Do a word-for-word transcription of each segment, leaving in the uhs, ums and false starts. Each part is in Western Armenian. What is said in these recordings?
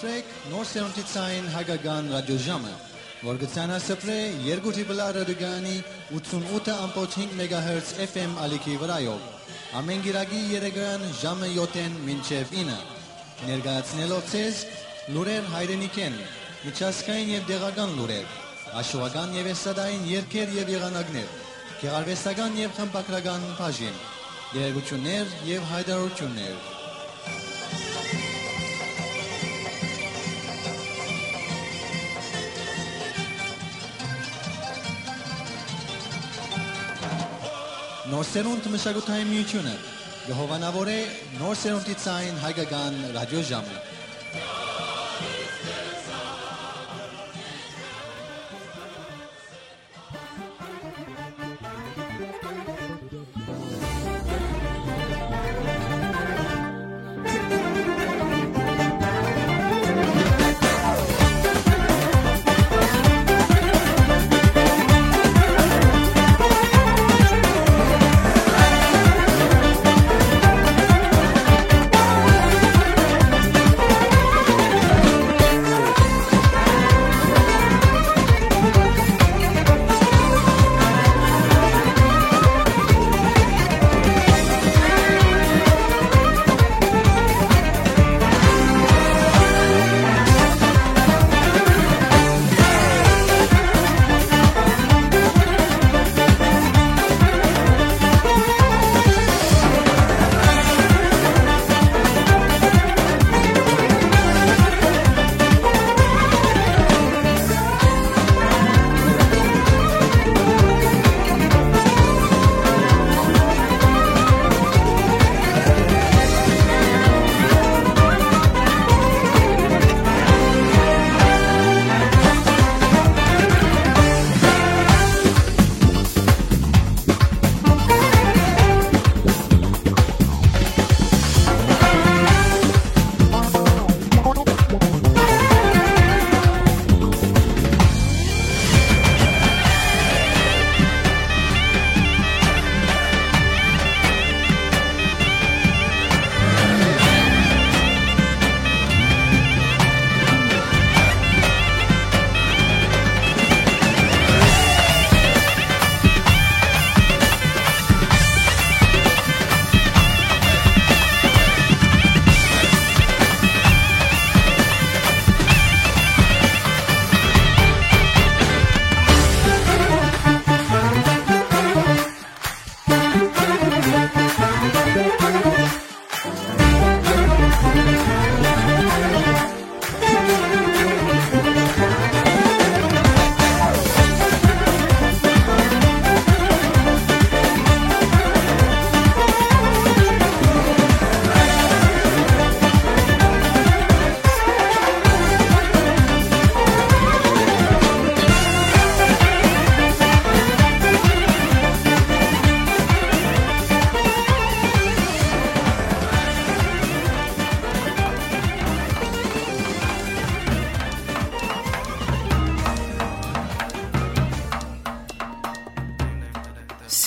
Նոր սերունդի ցային հայկական ռադիոժամը, որ կը ցանասփռէ երկու դիպլա ռադիոկայանի ութսունութ ըմբոց հինգ մեգահերց F M ալիքի վրայով, ամէն կիրակի երեկոյեան ժամը յոթ մինչեւ ինը, ներկայացնելով ձեզ լուրեր հայրենիքէն, միջազգային եւ տեղական լուրեր, աշուական եւ էստրադային երգեր եւ եղանակներ, գեղարուեստական եւ խմբագրական բաժին, տեղեկութիւններ եւ յայտարարութիւններ։ Նոր սերունդ մշակութային միութիւնը կը հովանաւորէ նոր սերունդի ցային հայկական ռադիոժամը։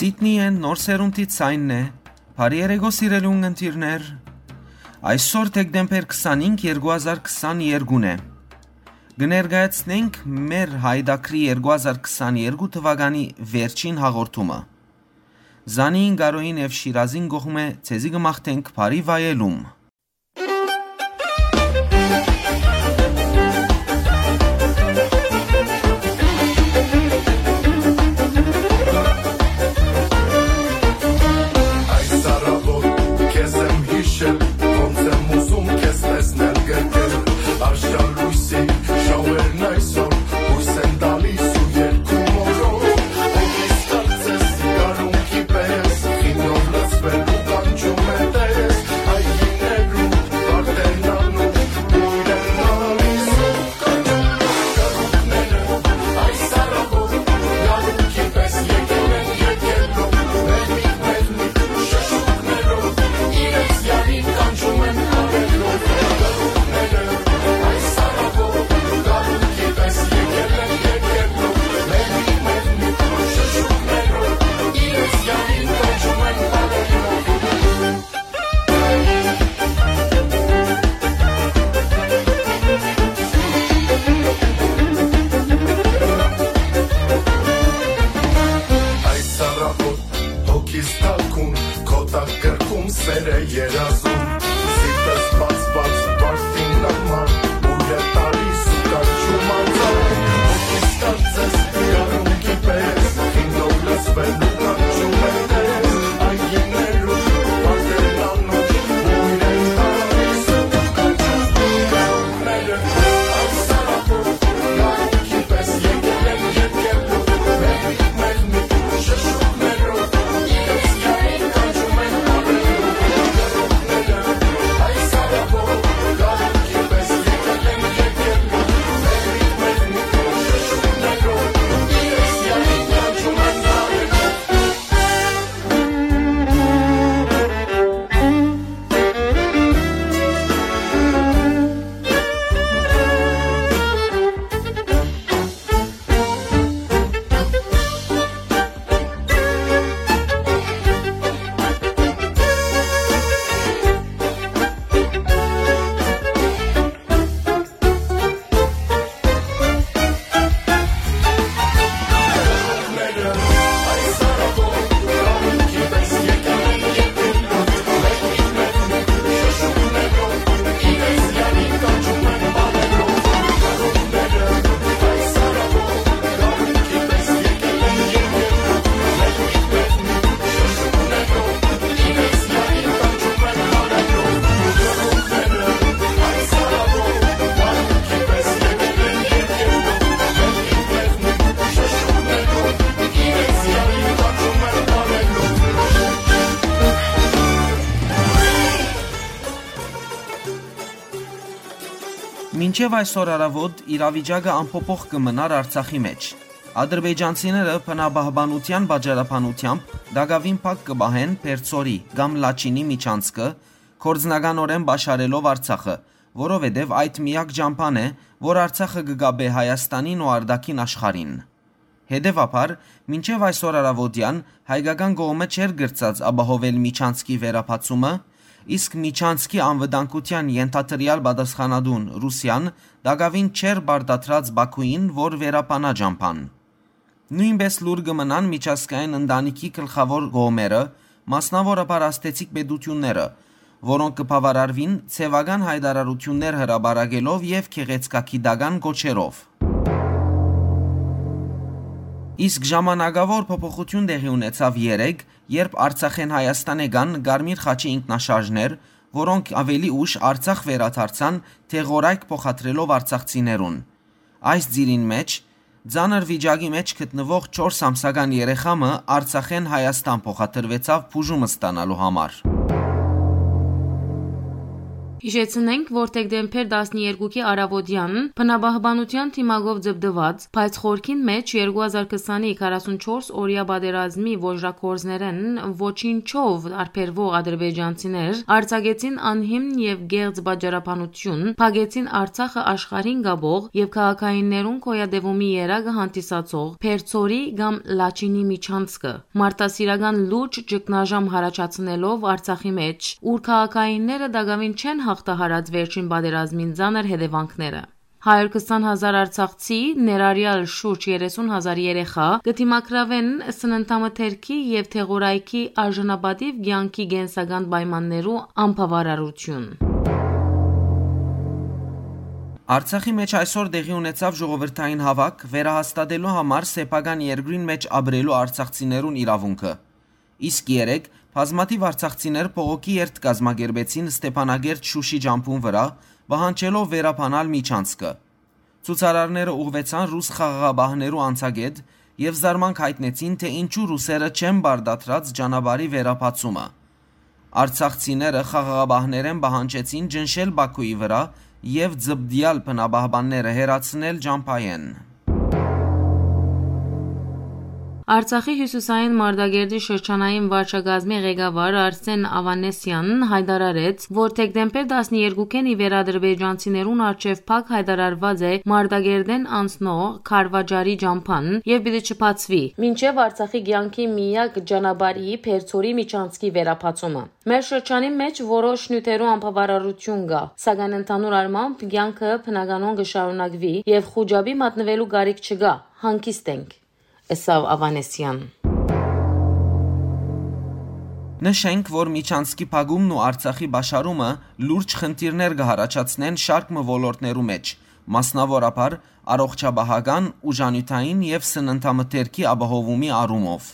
Սիդնիէն նոր սերունդի ցայնն է։ Բարի երեկո, սիրելի ունգընտիրներ։ Այսօր դեկտեմբեր քսանհինգ, երկու հազար քսաներկուն է։ Կը ներկայացնենք մեր Հայ Դակրի երկու հազար քսաներկու թուականի վերջին հաղորդումը։ Զանին, Գարոյին եւ Շիրազին կողմէ ձեզի կը մաղթենք բարի վայելում։ Այս առավոտ քեզ եմ յիշել, ոնց եմ ուզում քեզ տեսնել կրկել։ Արշալույսի շաուերն այսօր յոյս են տալիս ու երկու մորով։ Հոգիս կարծես գարունքի պես, խինով լցվել ու կանչում է տես։ Հայրինե Մինչեւ այսօր առաւօտ իրավիճակը անփոփոխ կը մնար Արցախի մէջ։ Ադրբեջանցիները բնապահպանութեան պատճառաբանութեամբ տակաւին փակ կը պահեն Պերցորի կամ Լաչինի միջանցքը, գործնականօրէն պաշարելով Արցախը, որովհետեւ այդ միակ ճամբան է, որ Արցախը կը կապէ Հայաստանին ու արտաքին աշխարհին։ Հետեւաբար, մինչեւ այսօր առաւօտեան հայկական կողմը չէր կրցած ապահովել միջանցքի վերաբացումը, իսկ միջանցքի անվտանգութեան ենթադրեալ պատասխանատուն Ռուսիան տակաւին չէր պարտադրած Բաքուին, որ վերաբանայ ճամբան։ Նոյնպէս լուռ կը մնան միջազգային ընտանիքի գլխաւոր կողմերը, մասնաւորաբար ազդեցիկ պետութիւնները, որոնք կը բաւարարուին ձեւական յայտարարութիւններ հրապարակելով եւ գեղեցկագիտական կոչերով։ Իսկ ժամանակաւոր փոփոխութիւն տեղի ունեցաւ երեկ, երբ Արցախէն Հայաստան եկան Կարմիր խաչի ինքնաշարժներ, որոնք աւելի ուշ Արցախ վերադարձան դեղորայք փոխադրելով արցախցիներուն։ Այս ծիրին մէջ, ծանր վիճակի մէջ գտնուող չորս ամսական երեխայ մը Արցախէն Հայաստան փոխադրուեցաւ բուժում ստանալու համար։ Յիշեցնենք, որ դեկտեմբեր տասներկուքի առաւօտեան բնապահպանութեան դիմակով ձպտուած, բայց խորքին մէջ երկու հազար քսանի քառասունչորս օրեայ պատերազմի ոճրագործներէն ոչինչով տարբերուող ադրբեջանցիներ արձակեցին անհիմն եւ կեղծ պատճառաբանություն, փակեցին Արցախը աշխարհին կապող եւ քաղաքայիններուն գոյատեւումի երակը հանդիսացող Պերցորի կամ Լաչինի միջանցքը, մարդասիրական լուրջ ճգնաժամ յառաջացնելով Արցախի մէջ, ուր քաղաքայինները տակաւին չեն յաղթահարած վերջին պատերազմին ծանր հետեւանքները։ Հարյուր քսան հազար արցախցի, ներառեալ շուրջ երեսուն հազար երեխայ, կը դիմագրաւեն սննդամթերքի եւ դեղորայքի արժանապատիւ կեանքի կենսական պայմաններու անբաւարարութիւն։ Արցախի մէջ այսօր տեղի ունեցաւ ժողովրդային հաւաք՝ վերահաստատելու համար սեփական երկրին մէջ ապրելու արցախցիներուն իրաւունքը։ Իսկ երեկ բազմաթիւ արցախցիներ բողոքի երթ կազմակերպեցին Ստեփանակերտ Շուշի ճամբուն վրայ, պահանջելով վերաբանալ միջանցքը։ Ցուցարարները ուղղուեցան ռուս խաղաղապահներու անցակետ եւ զարմանք յայտնեցին, թէ ինչու ռուսերը չեն պարտադրած ճանապարհի վերաբացումը։ Արցախցիները խաղաղապահներէն պահանջեցին ճնշել Բաքուի վրայ եւ ձպտեալ բնապահպանները հեռացնել ճամբայէն։ Արցախի հիւսիսային Մարտակերտի շրջանային վարչակազմի ղեկավար Արսեն Ավանեսեան յայտարարեց, որ դեկտեմբեր տասներկուքէն ի վեր ադրբեջանցիներուն առջեւ փակ յայտարարուած է Մարտակերտէն անցնող քարվաճառի ճամբան եւ պիտի չբացուի, մինչեւ Արցախի կեանքի միակ ճանապարհի Պերցորի միջանցքի վերաբացումը։ Մեր շրջանի մէջ որոշ նիւթերու անբաւարարութիւն կայ, սակայն ընդհանուր առմամբ կեանքը բնականոն կը շարունակուի եւ խուճապի մատնուելու կարիք չկայ, հանգիստ ենք, ըսաւ Ավանեսեան։ Նշենք, որ միջանցքի փակումն ու Արցախի պաշարումը լուրջ խնդիրներ կը յառաջացնեն շարք մը ոլորտներու մէջ, մասնաւորաբար առողջապահական, ուժանիւթային եւ սննդամթերքի ապահովումի առումով։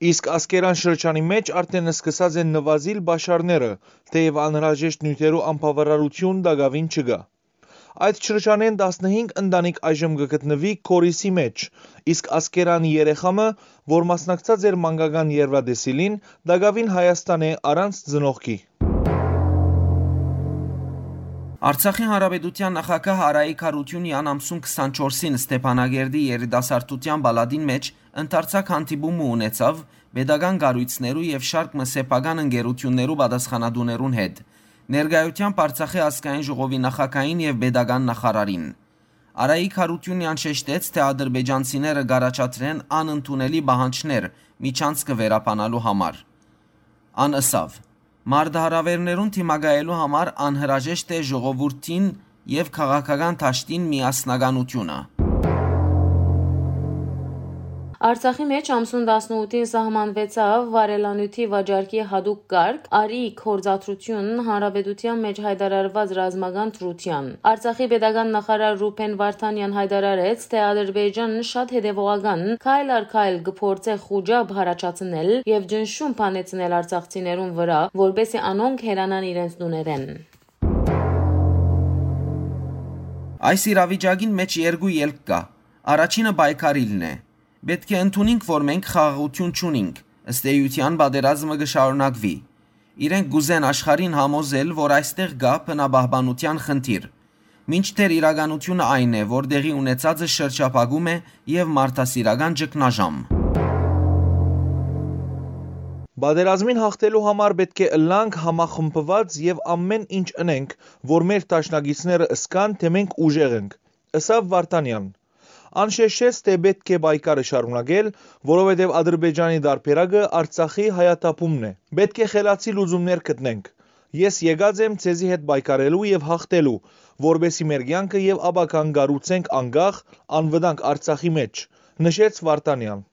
Իսկ Ասկերան շրջանի մէջ արդէն սկսած են նուազիլ պաշարները, թէեւ անհրաժեշտ նիւթերու անբաւարարութիւն տակաւին չկայ։ Այդ շրջանէն տասնհինգ ընտանիք այժմ կը գտնուի Քորիսի մէջ, իսկ Ասկերանի երեխայ մը, որ մասնակցած էր մանկական երրվա տեսիլին, տակաւին Հայաստան է առանց ծնողքի։ Արցախի Հանրապետութեան նախագահ Արայիկ Հարութիւնեան ամսուն քսանչորսին Ստեփանակերտի երիտասարդութեան պալատին մէջ ընդարձակ հանդիպումը ունեցաւ պետական կառոյցներու եւ շարք մը սեփական ընկերութիւններու պատասխանատուներուն հետ, ներկայութեամբ Արցախի ազգային ժողովի նախագահին եւ պետական նախարարին։ Արայիկ Հարութիւնեան շեշտեց, թէ ադրբեջանցիները կ'առաջադրեն անընդունելի պահանջներ միջանցքը վերաբանալու համար։ Ան ըսաւ. «Մարտահրաւէրներուն դիմակայելու համար անհրաժեշտ է ժողովուրդին եւ քաղաքական դաշտին միասնականութիւնը»։ Արցախի մէջ ամսուն տասնութին սահմանուեցաւ վառելանիւթի վաճառքի յատուկ կարգ, արի գործադրութիւն, հանրապետութեան մէջ յայտարարուած ռազմական դրութեան։ Արցախի պետական նախարար Ռուբեն Վարդանեան յայտարարեց, թէ Ադրբեջանն շատ հետեւողական, քայլ առ քայլ կը փորձէ խուճապ յառաջացնել եւ ճնշում բանեցնել արցախցիներուն վրայ, որպէսզի անոնք հեռանան իրենց տուներէն։ Այս իրավիճակին մէջ երկու ելք կայ։ Առաջինը պայքարիլն է։ Պէտք է ընդունինք, որ մենք խաղաղութիւն չունինք, ըստ էութեան պատերազմը կը շարունակուի։ Իրենք կ'ուզեն աշխարհին համոզել, որ այստեղ կայ բնապահպանութեան խնդիր, մինչդեռ իրականութիւնը այն է, որ տեղի ունեցածը շրջափակում է եւ մարդասիրական ճգնաժամ։ Պատերազմին յաղթելու համար պէտք է ըլլանք համախմբուած եւ ամէն ինչ ընենք, որ մեր դաշնակիցները զգան, թէ մենք ուժեղ ենք, ըսաւ Վարդանեան։ Ան շեշտեց, թէ պէտք է պայքարը շարունակել, որովհետեւ Ադրբեջանի տարբերակը Արցախի հայաթափումն է։ Պէտք է խելացի լուծումներ գտնենք։ Ես եկած եմ ձեզի հետ պայքարելու եւ յաղթելու, որպէսզի մեր կեանքը եւ ապագան կառուցենք անկախ, անվտանգ Արցախի մէջ, նշեց Վարդանեան։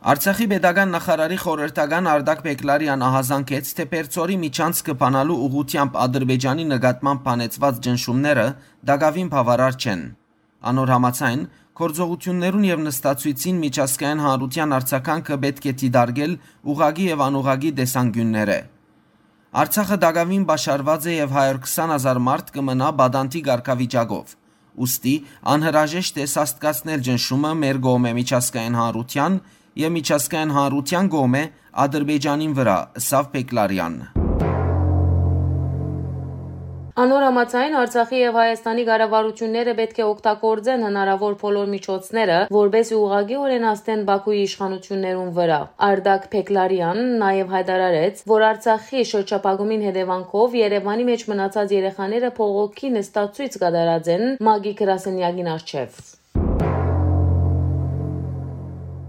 Արցախի պետական նախարարի խորհրդական Արտակ Պեկլարեան ահազանգեց, թէ Պերձորի միջանցքը բանալու ուղղութեամբ Ադրբեջանի նկատմամբ բանեցուած ճնշումները տակաւին բաւարար չեն։ Անոր համաձայն, գործողութիւններուն եւ նստացոյցին միջազգային հանրութեան արձագանքը պէտք է դիտարկել ուղղակի եւ անուղղակի տեսանկիւններէ։ Արցախը տակաւին պաշարուած է եւ հարիւր քսան հազար մարդ կը մնայ պատանդի կարգավիճակով։ Ուստի անհրաժեշտ է սաստկացնել ճնշումը մեր կողմէ միջազգային հանրութեան եւ միջազգային հանրութեան կողմէ Ադրբեջանին վրայ, ըսաւ Պեկլարեան։ Անոր համաձայն, Արցախի եւ Հայաստանի կառավարութիւնները պէտք է օգտագործեն հնարաւոր բոլոր միջոցները, որպէսզի ուղղակիօրէն ազդեն Բաքուի իշխանութիւններուն վրայ։ Արտակ Պեկլարեան նաեւ յայտարարեց, որ Արցախի շրջափակումին հետեւանքով Երեւանի մէջ մնացած երեխաները բողոքի նստացոյց կատարած են ՄԱԿ-ի գրասենեակին առջեւ։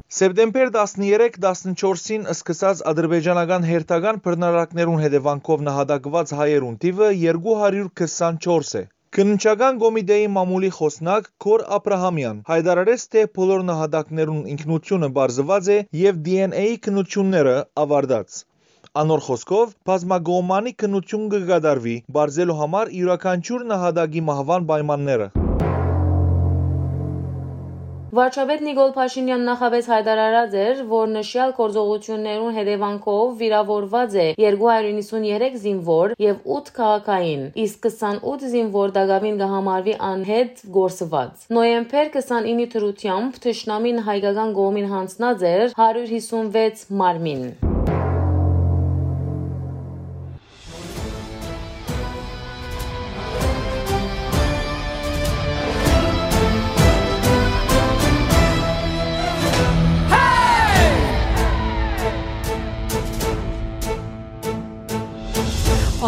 Սեպտեմբեր տասներեք, տասնչորսին սկսած ադրբեջանական հերթական բռնարարքներուն հետեւանքով նահատակուած հայերուն թիւը երկու հարիւր քսանչորս է։ Քննչական կոմիտէի մամուլի խօսնակ Քոր Աբրահամեան յայտարարեց, թէ բոլոր նահատակներուն ինքնութիւնը պարզուած է եւ D N A-ի քննութիւնները աւարտած։ Անոր խօսքով, բազմակողմանի քննութիւն կը կատարուի, պարզելու համար իւրաքանչիւր նահատակի մահուան պայմանները։ Վարչապետ Նիկոլ Փաշինեան նախապէս յայտարարած էր, որ նշեալ գործողութիւններուն հետեւանքով վիրաւորուած է երկու հարիւր իննսուններեք զինուոր եւ ութ քաղաքային, իսկ քսանութ զինուոր տակաւին կը համարուի անհետ կորսուած։ Նոյեմբեր քսանիննի դրութեամբ թշնամին հայկական կողմին յանձնած էր հարիւր հիսունվեց մարմին։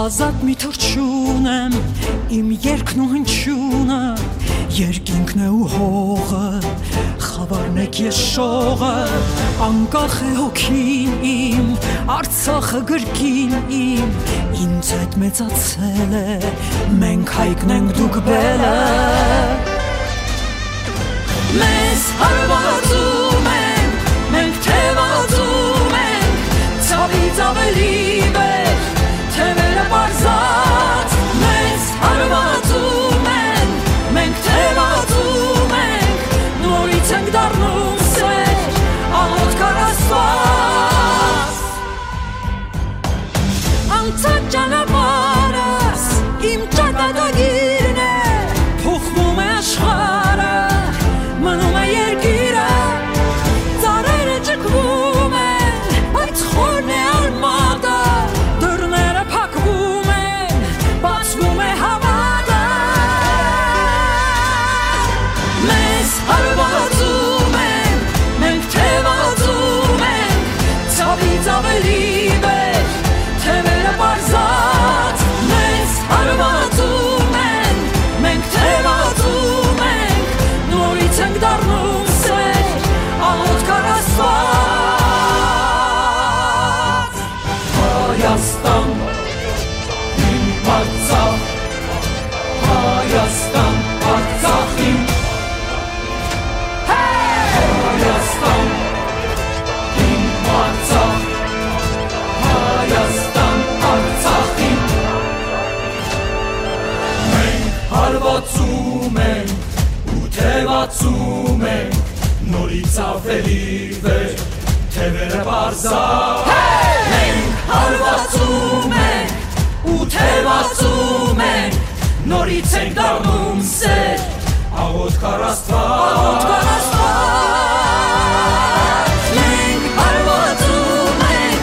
Ազատ մի թռչուն եմ, իմ երկն ու հնչիւնը, երկինքն է ու հողը, խաւարն է քեզ շողը, անկախ է հոգին իմ, Արցախը գրկին իմ, ինձ հետ մեծացել է, մենք հայկն ենք, դուք բելը։ Մեզ հարվածում են, մենք թևածում ենք, ցավից ավելի վեր, թևերը պարզած, մեզ հարվածում են, մենք թևածում ենք, նորից ենք դառնում սեր, աղոթք առ Աստված։ Անցած ճանապարհս իմ ճակատագիրն է, փոխվում է աշխարհը, մնում է երկիրը, ծառերը ճկվում են, բայց խորն է արմատը, դռները փակվում են, բացվում է հավատը։ Մեզ հարվածում են, մենք թևածում ենք, ցավից ավելի վեր, թևերը պարզած, մեզ հարվածում են, մենք թևածում ենք, նորից ենք դառնում սեր, աղոթք առ Աստված։ Հայաստան, իմ Արցախ, Հայաստան, Արցախ իմ, Հայաստան, իմ Արցախ, Հայաստան, Արցախ իմ։ Մենք հարվածում ենք ու թևածում ենք, նորից ավելի վեր, թևերը պարզա։ Մենք հարվածում ենք ու թևածում ենք, նորից ենք դառնում սեր, աղոթք առ Աստված։ Աղոթք առ Աստված։ Մենք հարվածում ենք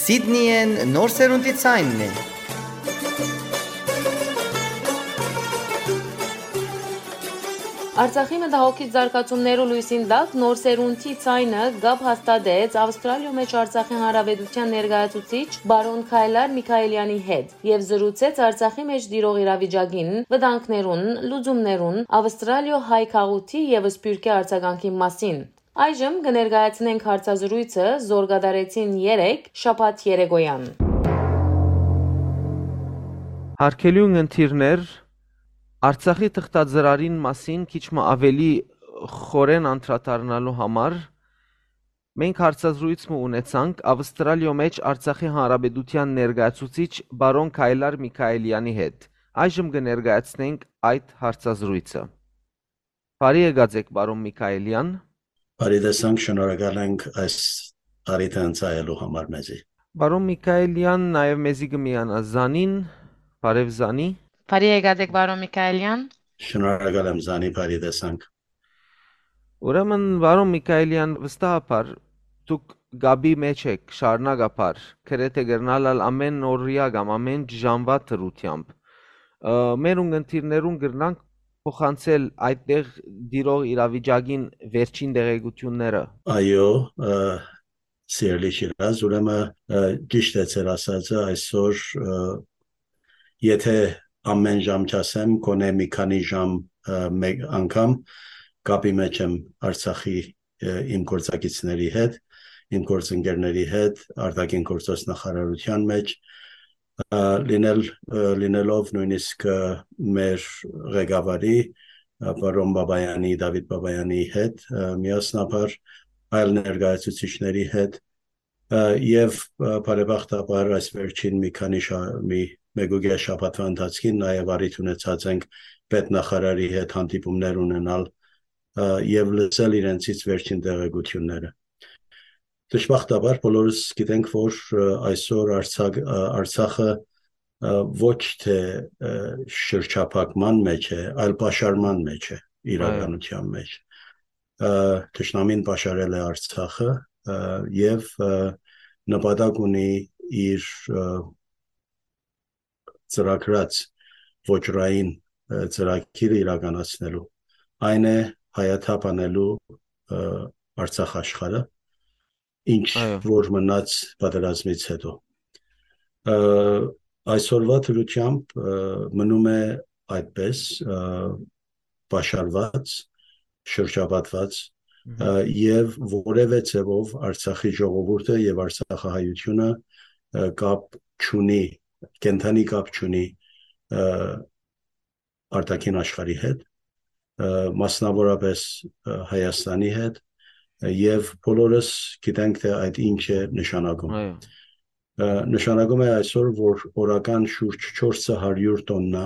Սիդնիեն նոր սերունդի ցայնն է։ Արցախի մտահոգիչ զարգացումներու լոյսին տակ նոր սերունդի ցայնը կապ հաստատեց Ավստրալիոյ մէջ Արցախի Հանրապետութեան ներկայացուցիչ բարոն Քայլար Միքայելյանի հետ եւ զրուցեց Արցախի մէջ տիրող իրավիճակին, վտանգներուն, լուծումներուն, Ավստրալիոյ հայ գաղութի եւ սփիւռքի արձագանքին մասին։ Այժմ կը ներկայացնենք հարցազրոյցը, զոր կատարեցին երեկ, շաբաթ երեկոյեան։ Հարգելի ունգընտիրներ, Արցախի թղթածրարին մասին քիչ մը աւելի խորեն անդրադառնալու համար, մենք հարցազրոյց մը ունեցանք Ավստրալիոյ մէջ Արցախի Հանրապետութեան ներկայացուցիչ բարոն Քայլար Միքայելյանի հետ։ Այժմ կը ներկայացնենք այդ հարցազրոյցը։ Բարի եկած եք, բարոն Միքայելյան։ Բարի տեսանք, շնորհակալ ենք այս առիթը ընծայելու համար մեզի։ Բարոն Միքայելյան, նաեւ մեզի կը միանայ Զանին։ Բարեւ, Զանի։ Բարի եկած եք, բարոն Միքայելյան։ Շնորհակալ եմ, Զանի, բարի տեսանք։ Ուրեմն, բարոն Միքայելյան, վստահաբար դուք կապի մէջ եք շարունակաբար, գրեթէ կրնալ ալ ամէն օրեայ կամ ամէն ժամուայ դրությամբ։ Ը, մեր ունգընտիրներուն կրնանք փոխանցել այդտեղ տիրող իրավիճակին վերջին տեղեկութիւնները։ Այո, ը, սիրելի Շիրազ, ուրեմն, ը, ճիշդ է ձեր ասածը, այսօր, ը, եթե ամէն ժամ չասեմ, գոնե մի քանի ժամ, ը, մեկ անգամ կապի մէջ եմ Արցախի, ը, իմ գործակիցների հետ, իմ գործընկերների հետ, արտաքին գործոց նախարարութեան մէջ, ը, լինել, ը, լինելով նոյնիսկ, ը, մեր ղեկավարի, ը, պարոն Բաբայանի, Դավիթ Բաբայանի հետ, ը, միասնաբար այլ ներկայացուցիչների հետ, ը, եւ, ը, բարեբախտաբար այս վերջին մի քանի շա-, մի մեկուկես շաբաթվա ընթացքին նաեւ առիթ ունեցած ենք պետնախարարի հետ հանդիպումներ ունենալ, ը, եւ լսել իրենցից վերջին տեղեկութիւնները։ Դժբախտաբար բոլորս գիտենք, որ, ը, այսօր Արցախ-, ը, Արցախը, ը, ոչ թե, ը, շրջափակման մէջ է, այլ պաշարման մէջ է, Այո։ իրականության մէջ։ Ը, թշնամին պաշարել է Արցախը, ը, եւ, ը, նպատակ ունի իր, ը, ծրագրած ոճրային, ը, ծրագիրը իրականացնելու։ Այն է հայաթափ անելու, ը, Արցախ աշխարհը, ինչ Այո։ որ մնաց պատերազմից հետո։ Ը, այսօրվա դրությամբ, ը, մնում է այդպես, ը, պաշարված, շրջապատված, Մհմ։ ը, եւ որեւէ ձեւով Արցախի ժողովուրդը եւ արցախահայությունը, ը, կապ չունի, կենդանի կապ չունի, ը, արտաքին աշխարհի հետ, ը, մասնավորապես, ը, Հայաստանի հետ, ը, եւ բոլորս գիտենք, թե այդ ինչ է նշանակում։ Այո։ Ը, նշանակում է այսօր, որ օրական շուրջ չորս հարիւր տոննա,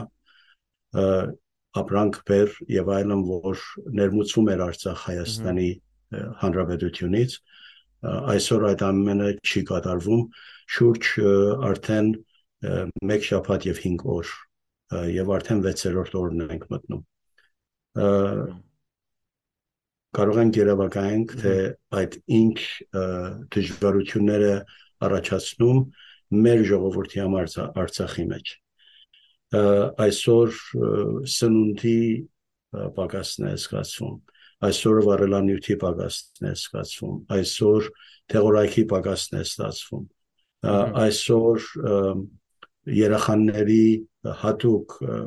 ը, ապրանք, բեռ եւ այլն, որ ներմուծվում էր Արցախ Հայաստանի, Մհմ։ ը, Հանրապետությունից, ը, այսօր այդ ամենը չի կատարվում։ Շուրջ, ը, արդեն, ը, մեկ շաբաթ եւ հինգ օր, ը, եւ արդեն վեցերորդ օրն ենք մտնում։ Ը, Մհմ։ կարող ենք երեւակայենք, թե Մհմ։ այդ ինչ, ը, դժվարություններ է առաջացնում մեր ժողովրդի համար Արցա-, Արցախի մեջ։ Ը, այսօր, ը, սնունդի, ը, պակասն է զգացվում, այսօր վառելանիւթի պակասն է զգացվում, այսօր դեղորայքի պակասն է ստացվում, ը, Մհմ։ այսօր, ը, երեխաների հատուկ, ը,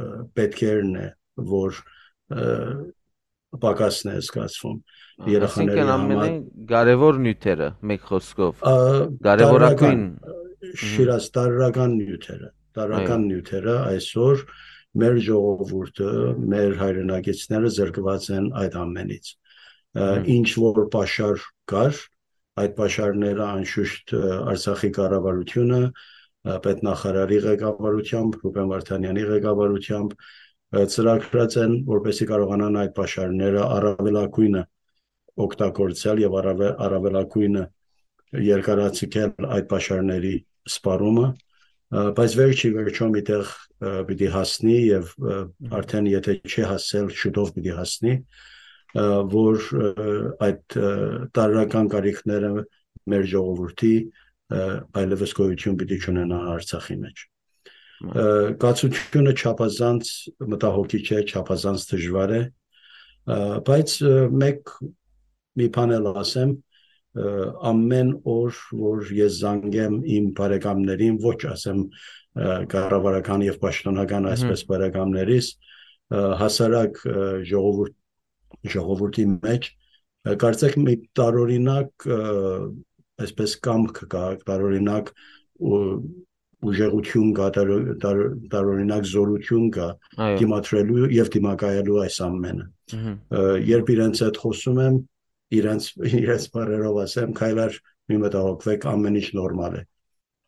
ը, պետքերն է, որ, ը, պակասն է զգացվում Ա, երեխաների այսինքն համար։ ամենայն կարևոր նիւթերը, մեկ խոսքով։ Ա, Կարևորագույն։ տարրական, ը, Մհմ։ Շիրազ, տարրական նիւթերը, տարրական Այո։ նիւթերը այսօր մեր ժողովուրդը, մեր հայրենակիցները զրկված են այդ ամենից։ Ա, Մհմ։ ինչ որ պաշար կար, այդ պաշարները անշուշտ, ը, Արցախի կառավարությունը, ը, պետնախարարի ղեկավարությամբ, Ռուբեն Վարդանյանի ղեկավարությամբ, ը, ծրագրած են, որպեսզի կարողանան այդ պաշարները առավելագույնը օգտագործել եւ առավել-, առավելագույնը երկարաձգել այդ պաշարների սպառումը, ը, բայց վերջի վերջո միտեղ, ը, պիտի հասնի եւ, ը, Մհմ։ արդեն եթե չի հասել, շուտով պիտի հասնի, ը, որ, ը, այդ, ը, տարրական կարիքները մեր ժողովրդի, ը, այլևս գոյություն պիտի չունենայ Արցախի մէջ։ Ը, կացությունը չափազանց մտահոգիչ է, չափազանց դժուար է, ը, բայց, ը, մէկ, մի բան էլ ասեմ, ը, ամեն օր, որ ես զանգեմ իմ բարեկամներին, ոչ ասեմ, ը, կառավարական եւ պաշտոնական, Մհմ։ այսպես բարեկամներիս, ը, հասարակ, ը, ժողովուրդ-, ժողովուրդի մեջ, ը, կարծեք մի տարօրինակ, ը, այսպես կամք կա, տարօրինակ ու-, ուժեղություն կա, տար-, տար-, տարօրինակ զորություն կա Այո։ դիմադրելու եւ դիմակայելու այս ամենը։ Մհմ։ Ը, երբ իրենց հետ խոսում եմ, իրենց, իրենց բառերով ասեմ, «Քայլար, մի մտահոգվեք, ամեն ինչ նորմալ է»։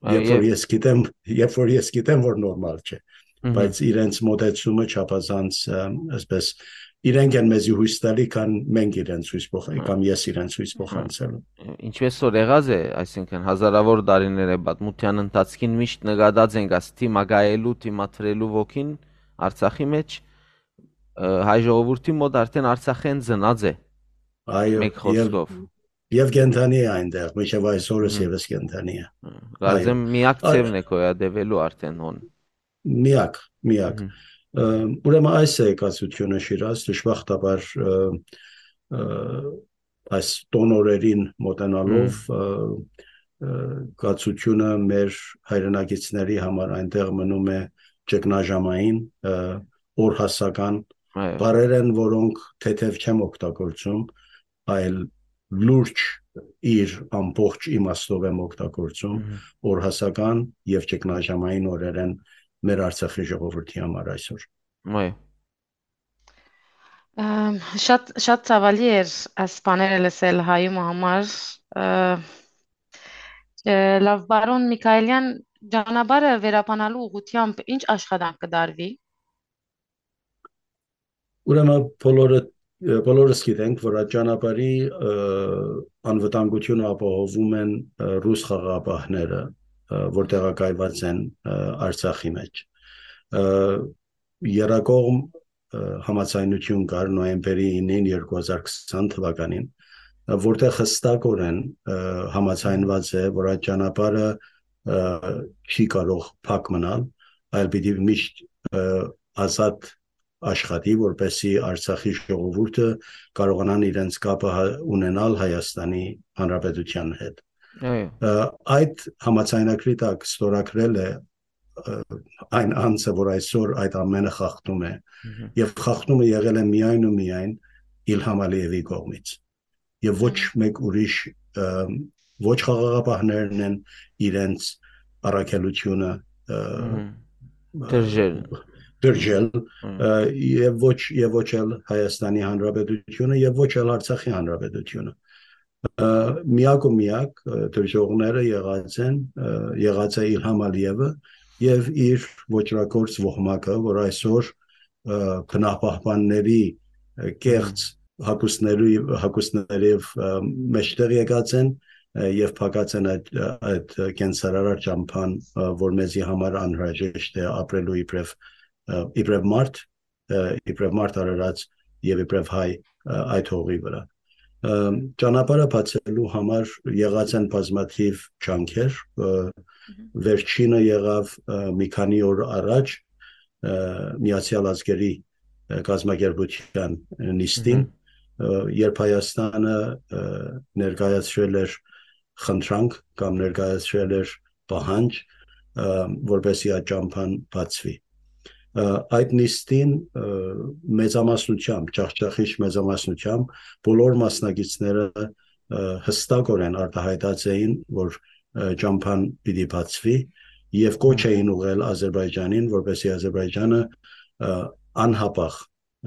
Այո, Երբ որ եւ ես գիտեմ, երբ որ ես գիտեմ, որ նորմալ չէ, Մհմ։ բայց իրենց մոտեցումը չափազանց, ը, այսպես, իրենք են մեզի հույս տալի, քան մենք իրենց հույս փոխ-, Այո։ կամ ես իրենց հույս փոխանցելու։ Ինչպես որ եղած է, այսինքն հազարավոր տարիներ է պատմության ընթացքին միշտ նկատած ենք այս դիմակայելու, դիմադրելու ոգին Արցախի մեջ, ը, հայ ժողովուրդի մոտ արդեն Արցախեն ծնած է, Այո, մեկ եւ, խոսքով։ եւ կենդանի է այնտեղ, մինչեւ այսօրս Մհմ։ եւս կենդանի է։ Կարծեմ Այո։ միակ Այ- ձևն է գոյատևելու արդեն հոն։ Միակ, միակ։ Մհմ։ Ը, ուրեմն այս է կացությունը, Շիրազ, դժբախտաբար, ը, ը, այս տոնորերին մոտենալով, Մհմ։ ը, ը, կացությունը մեր հայրենակիցների համար այնտեղ մնում է ճգնաժամային, ը, օրհասական Այո։ բառեր են, որոնք թեթև չեմ օգտագործում, այլ լուրջ իր ամբողջ իմաստով եմ օգտագործում, Մհմ։ օրհասական եւ ճգնաժամային օրեր են մեր Արցախի ժողովրդի համար այսօր։ Այո։ Ըմ, շատ, շատ ցավալի էր այս բաները լսել հայու համար, ը, ը, լավ, պարոն Միքայելյան, ճանապարհը վերաբանալու ուղղությամբ ինչ աշխատանք կդարվի։ Ուրեմն բոլորը, ը, բոլորս գիտենք, որ այդ ճանապարհի, ը, անվտանգությունը ապահովում են, ը, ռուս խաղաղապահները, ը, որ տեղակայված են, ը, Արցախի մեջ։ Ը, եռակողմ, ը, համաձայնություն կար նոյեմբերի իննին երկու հազար քսան թվականին, ը, որտեղ հստակորեն, ը, համաձայնված է, որ այդ ճանապարհը, ը, չի կարող փակ մնալ, այլ պիտի միշտ, ը, ազատ աշխատի, որպեսզի Արցախի ժողովուրդը կարողանան իրենց կապը հա-, ունենալ Հայաստանի Հանրապետության հետ։ Այո։ Ը, այդ համաձայնագրի տակ ստորագրել է, ը, այն անձը, որ այսօր այդ ամենը խախտում է, Մհմ։ եւ խախտումը եղել է միայն ու միայն Իլհամ Ալիևի կողմից, եւ ոչ Մհմ։ մեկ ուրիշ, ը, ոչ խաղաղապահներն են իրենց առաքելությունը, ը, Մհմ։ ը, Դրժել։ դրժել, Մհմ։ ը, եւ ոչ, եւ ոչ էլ Հայաստանի Հանրապետությունը, եւ ոչ էլ Արցախի Հանրապետությունը։ Ը, միակ ու միակ, ը, դրժողները եղած են, ը, եղած է Իլհամ Ալիևը եւ իր ոճրագործ ոհմակը, որ այսօր, ը, բնապահպանների, ը, կեղծ Մհմ։ հագուստների, հագուստներով, ը, մեջտեղ եկած են, ը, եւ փակած են այդ, ը, այդ կենսարար ճամփան, ը, որ մեզի համար անհրաժեշտ է ապրելու իբրեւ, ը, իբրեւ մարդ, ը, իբրեւ մարդ արարած եւ իբրեւ հայ, ը, այդ հողի վրա։ Ը, ճանապարհը բացելու համար եղած են բազմաթիվ ջանքեր, ը, Մհմ։ վերջինը եղավ, ը, մի քանի օր առաջ, ը, Միացյալ Ազգերի, ը, կազմակերպության նիստին, Մհմ։ ը, երբ Հայաստանը, ը, ներկայացրել էր խնդրանք կամ ներկայացրել էր պահանջ, ը, որպեսզի այդ ճամփան բացվի։ Ը, այդ նիստին, ը, մեծամասնությամբ, ջախջախիչ մեծամասնությամբ բոլոր մասնակիցները, ը, հստակորեն արտահայտած էին, որ, ը, ճամփան պիտի բացվի եւ կոչ Մհմ։ էին ուղղել Ադրբեջանին, որպեսզի Ադրբեջանը, ը, անհապաղ,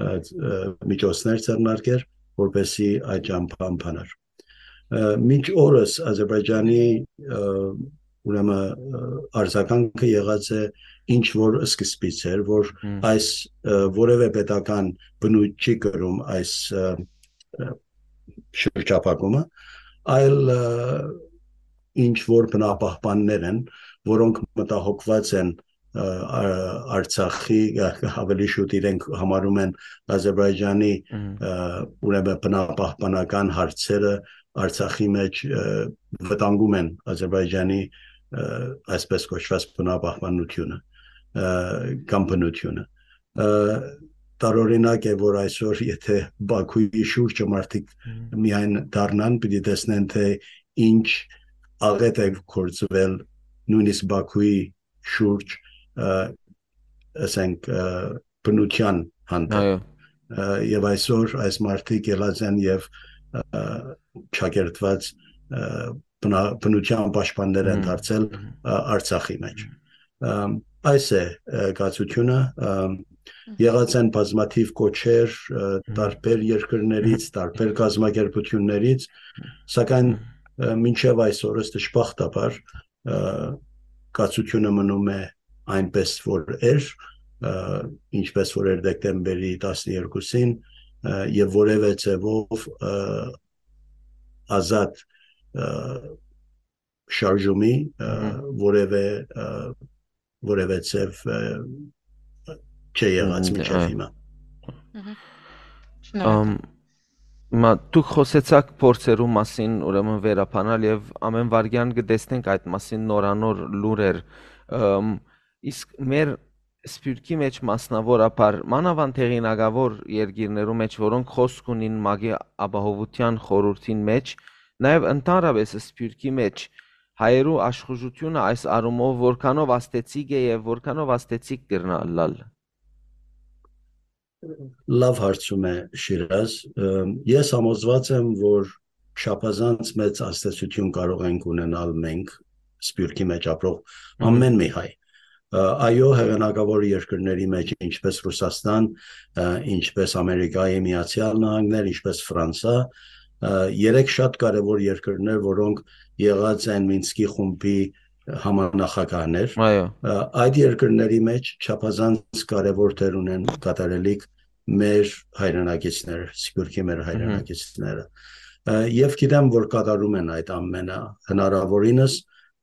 ը, ը, միջոցներ ձեռնարկեր, որպեսզի այդ ճամփան բանար։ Ը, մինչ օրս Ադրբեջանի, ը, ուրեմն, ը, արձագանքը եղած է ինչ որ սկզբից էր, որ Մհմ։ այս, ը, որևէ պետական բնույթ չի կրում այս, ը, ը, շրջափակումը, այլ, ը, ինչ որ բնապահպաններ են, որոնք մտահոգված են, ը, ա-, Արցախի, ը, ավելի շուտ իրենք համարում են Ադրբեջանի, Մհմ։ ը, ուրեմն բնապահպանական հարցերը Արցախի մէջ, ը, վտանգում են Ադրբեջանի, ը, այսպես կոչուած բնապահպաննութիւնը, ը, կամ բնութիւնը։ Ը, տարօրինակ է, որ այսօր, եթե Բաքուի շուրջը մարդիկ Մհմ։ միայն դառնան, պիտի տեսնեն, թե ինչ աղէտ է գործուել նոյնիսկ Բաքուի շուրջ, ը, ասենք, ը, բնութեան հանդէպ։ Այո։ Ը, եւ այսօր այս մարդիկ ելած են եւ, ը, չակերտված, ը, բնա-, բնութեան պաշտպաններ են Մհմ։ դարձել, Մհմ։ ը, Արցախի մէջ։ Ը, այս է, ը, կացությունը, ը, Մհմ։ եղած են բազմաթիւ կոչեր, ը, Մհմ։ տարբեր երկրներից, տարբեր կազմակերպություններից, սակայն, Մհմ։ ը, մինչեւ այսօրս դժբախտաբար, ը, կացությունը մնում է այնպես, որ էր, ը, ինչպես որ էր դեկտեմբերի տասներկուսին, ը, եւ որեւէ ձեւով, ը, ազատ, ը, շարժումի, ը, Մհմ։ որեւէ, ը, որեւէ ձեւ, ը, չէ եղած Մհմ, մինչեւ այո։ հիմա։ Մհմ։ Շնորհակալ։ Ամ, հիմա դուք խօսեցաք փորձերու մասին, ուրեմն վերաբանալ, եւ ամէն վայրկեան կը տեսնենք այդ մասին նորանոր լուրեր։ Ամ, իսկ մեր սփիւռքի մէջ մասնաւորաբար, մանաւանդ հեղինակաւոր երկիրներու մէջ, որոնք խօսք ունին ՄԱԿ-ի Ապահովութեան խորհուրդին մէջ, նաեւ ընդհանրապէս սփիւռքի մէջ, հայերու աշխուժութիւնը այս առումով որքանով ազդեցիկ է եւ որքանով ազդեցիկ կրնայ ըլլալ։ Լավ հարցում է, Շիրազ։ Ը, ես համոզված եմ, որ չափազանց մեծ ազդեցություն կարող ենք ունենալ մենք, սփիւռքի մէջ ապրող Մհմ։ ամէն մի հայ։ Ը, այո, հեղինակաւոր երկրների մէջ, ինչպես Ռուսաստան, ը, ինչպես Ամերիկայի Միացյալ Նահանգներ, ինչպես Ֆրանսա, ը, երեք շատ կարեւոր երկրներ, որոնք եղած են Մինսկի խումբի համանախագահներ։ Այո։ Ը, այդ երկրների մէջ չափազանց կարեւոր դեր ունեն կատարելիք մեր հայրենակիցները, սփիւռքի մեր Մհմ։ հայրենակիցները։ Ը, եւ գիտեմ, որ կատարում են այդ ամենը, հնարաւորինս,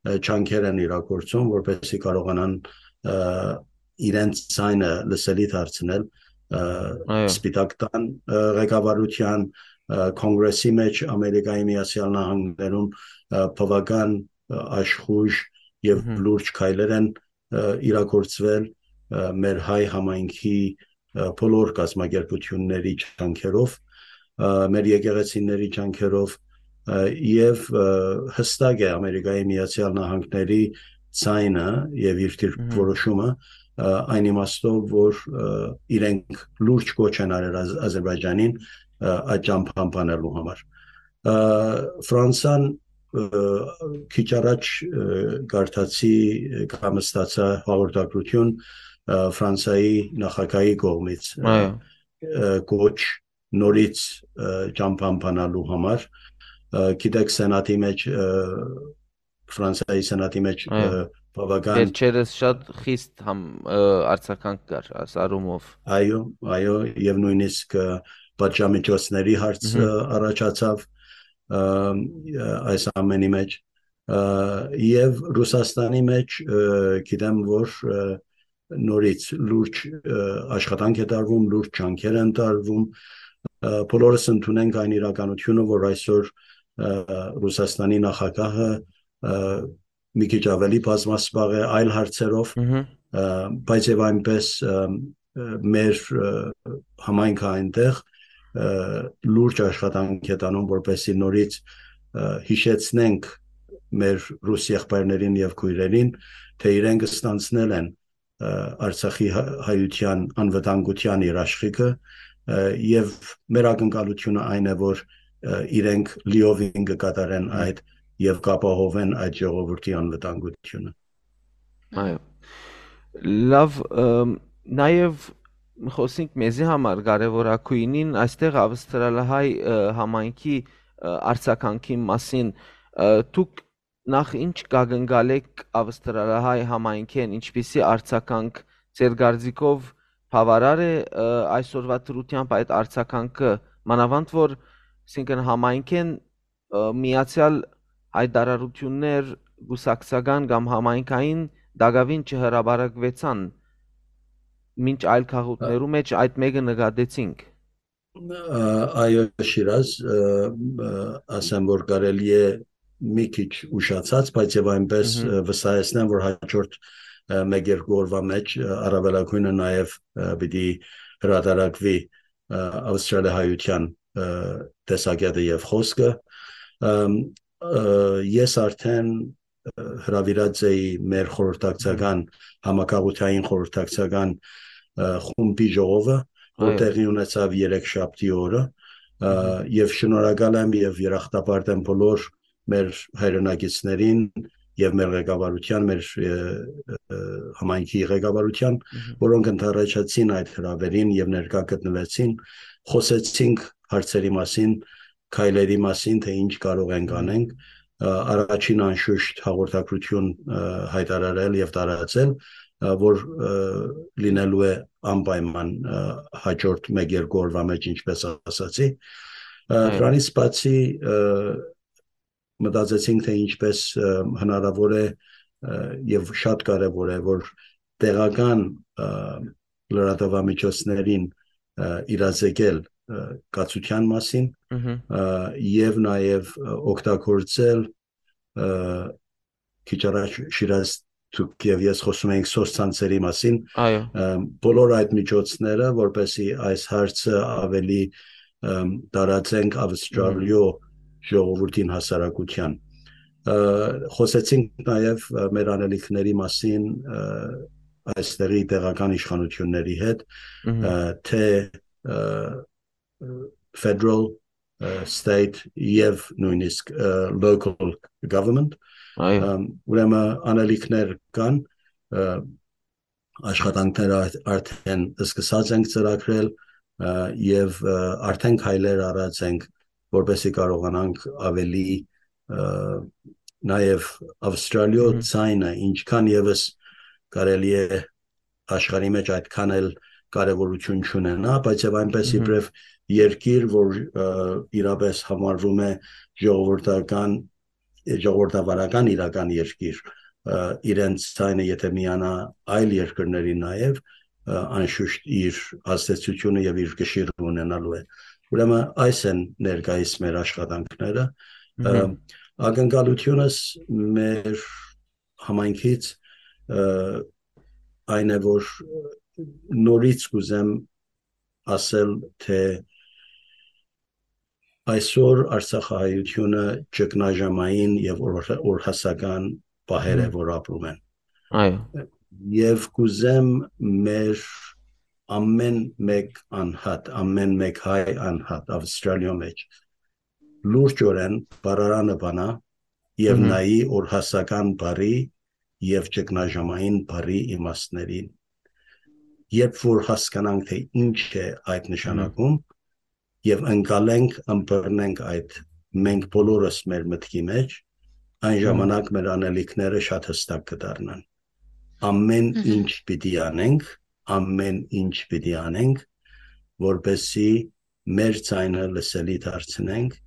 ը, ջանքեր են իրագործում, որպեսզի կարողանան, ը, իրենց ձայնը լսելի դարձնել, ը, Այո։ Սպիտակ տան, ը, ղեկավարութեան, ը, Կոնգրեսի մէջ Ամերիկայի Միացյալ Նահանգներում, ը, բաւական, ը, աշխուժ եւ Մհմ։ լուրջ քայլեր են, ը, իրագործվել, ը, մեր հայ համայնքի, ը, բոլոր կազմակերպությունների ջանքերով, ը, մեր եկեղեցիների ջանքերով, ը, եւ, ը, հստակ է Ամերիկայի Միացյալ Նահանգների ձայնը եւ իր դիրքորոշումը, Մհմ։ ը, այն իմաստով, որ, ը, իրենք լուրջ կոչ են արել Ազ-, Ադրբեջանին, ը, այդ ճամփան բանելու համար։ Ը, Ֆրանսան, ը, քիչ առաջ, ը, կարդացի, ը, կամ ստացա հաղորդագրություն, ը, Ֆրանսայի նախագահի կողմից, ը, Այո։ ը, կոչ նորից, ը, ճամփան բանալու համար։ Ը, գիտեք, Սենատի մէջ, ը, Ֆրանսայի Սենատի մէջ, Այո։ ը, բաւական Վերջերս շատ խիստ համ-, ը, արձագանք կար այս առումով։ Այո, այո, եւ նոյնիսկ, ը, պատժամիջոցների հարց, Մհմ։ ը, առաջացավ, ը, ը, այս ամենի մէջ, ը, եւ Ռուսաստանի մէջ, ը, գիտեմ, որ, ը, նորից լուրջ, ը, աշխատանք է տարվում, լուրջ ջանքեր են տարվում, ը, բոլորս ընդունենք այն իրականությունը, որ այսօր, ը, Ռուսաստանի նախագահը, ը, մի քիչ ավելի բազմասպաղ է այլ հարցերով, Մհմ։ ը, բայց եւ այնպես, ը, ը, մեր, ը, համայնքը այնտեղ, ը, լուրջ աշխատանք է տանում, որպեսզի նորից, ը, հիշեցնենք մեր ռուս եղբայրներին եւ քոյրերին, թե իրենք ստանձնել են, ը, Արցախի հա-, հայության անվտանգութեան իր աշխիքը, ը, եւ մեր ակնկալությունը այն է, որ, ը, իրենք լիովին կկատարեն Մհմ։ այդ եւ կապահովեն այդ ժողովրդի անվտանգությունը։ Այո։ Լավ, ըմ, նաեւ խոսենք մեզի համար կարեւորագույնին, այստեղ ավստրալահայ, ը, համայնքի, ը, արձագանքի մասին, ը, դուք նախ ինչ կակնկալէք ավստրալահայ համայնքէն, ինչպիսի արձագանք ձեր կարծիքով բաւարար է, ը, այսօրվա դրությամբ այդ արձագանքը, մանաւանդ որ, այսինքն, համայնքէն, ը, միացեալ հայտարարութիւններ կուսակցական կամ համայնքային տակաւին չհրապարակուեցան, մինչ այլ քաղաքներու Ա- մեջ այդ մէկը նկատեցինք։ Ա, այո, Շիրազ, ը, ը, ասեմ, որ կարելի է մի քիչ ուշացած, բայց եւ այնպես, Մհմ։ ը, վստահեցնեմ, որ հաջորդ, ը, մեկ երկու օրվա մեջ, ը, առավելագույնը նաեւ, ը, պիտի հրատարակվի, ը, Ավստրալիա հայության, ը, տեսակետը եւ խոսքը։ Ըմ, ը, ես արդեն, ը, հրավիրած էի մեր խորհրդակցական, համակաղութային խորհրդակցական, ը, խումբի ժողովը, որ Այո։ տեղի ունեցավ երեքշաբթի օրը, ը, Մհմ։ եւ շնորհակալ եմ եւ երախտապարտ եմ բոլոր մեր հայրենակիցներին եւ մեր ղեկավարության, մեր, ը, ը, համայնքի ղեկավարության, Մհմ։ որոնք ընդառաջացին այդ հրավերին եւ ներկայ գտնուեցին, խոսեցինք հարցերի մասին, քայլերի մասին, թե ինչ կարող ենք Մհմ։ անենք։ Ը, առաջին անշուշտ հաղորդագրություն, ը, հայտարարել եւ տարածել, ը, որ, ը, լինելու է անպայման, ը, հաջորդ մեկ երկու օրվա մեջ, ինչպես ասացի։ Ը, Այո։ դրանից բացի, ը, մտածեցինք, թե ինչպես, ը, հնարավոր է, ը, եւ շատ կարեւոր է, որ տեղական, ը, լրատվամիջոցներին, ը, իրազեկել, ը, կացության մասին, Մհմ։ ը, եւ նաեւ, ը, օգտագործել, ը, քիչ առաջ Շիրազ դուք եւ ես խոսում էինք սոցցանցերի մասին, Այո։ ը, բոլոր այդ միջոցները, որպեսզի այս հարցը ավելի, ը, տարածենք Ավստրալիո Մհմ։ ժողովրդին, հասարակության։ Ը, խոսեցինք նաեւ, ը, մեր անելիքների մասին, ը, այստեղի տեղական իշխանությունների հետ, Մհմ։ ը, թե, ը, federal, ը, state եւ նույնիսկ, ը, local government։ Այո։ Ըմ, ուրեմն անելիքներ կան, ը, աշխատանքները արդ-, արդեն սկսած ենք ծրագրել, ը, եւ, ը, արդեն քայլեր առած ենք, որպեսզի կարողանանք ավելի, ը, նաեւ Ավստրալիո Մհմ։ ձայնը, ինչքան եւս կարելի է աշխարհի մեջ այդքան էլ կարեւորություն չունենա, բայց եւ այնպես Մհմ։ իբրեւ երկիր, որ, ը, իրապես համարվում է ժողովրդական, ժողովրդավարական իրական երկիր, ը, իրենց ձայնը եթե միանա այլ երկրների նաեւ, ը, անշուշտ իր ազդեցությունը եւ իր կշիռը ունենալու է։ Ուրեմն այս են ներկայիս մեր աշխատանքները։ Ը, Մհմ։ ակնկալությունս մեր համայնքից, ը, այն է, որ նորից կուզեմ ասել, թե այսօր արցախահայությունը ճգնաժամային եւ օր-, օրհասական պահեր է, Մհմ։ որ ապրում են։ Այո։ Եւ կուզեմ մեր ամեն մեկ անհատ, ամեն մեկ հայ անհատ Ավստրալիոյ մեջ լուրջօրեն բառարանը բանայ եւ Մհմ։ նայի օրհասական բառի եւ ճգնաժամային բառի իմաստներին։ Երբ որ հասկանանք, թե ինչ է այդ նշանակում, Մհմ։ եւ ընկալենք, ըմբռնենք այդ մենք բոլորս մեր մտքի մեջ, այն Մհմ։ ժամանակ մեր անելիքները շատ հստակ կդառնան։ Ամեն Մհմ։ ինչ պիտի անենք, ամեն ինչ պիտի անենք, որպեսզի մեր ձայնը լսելի դարձնենք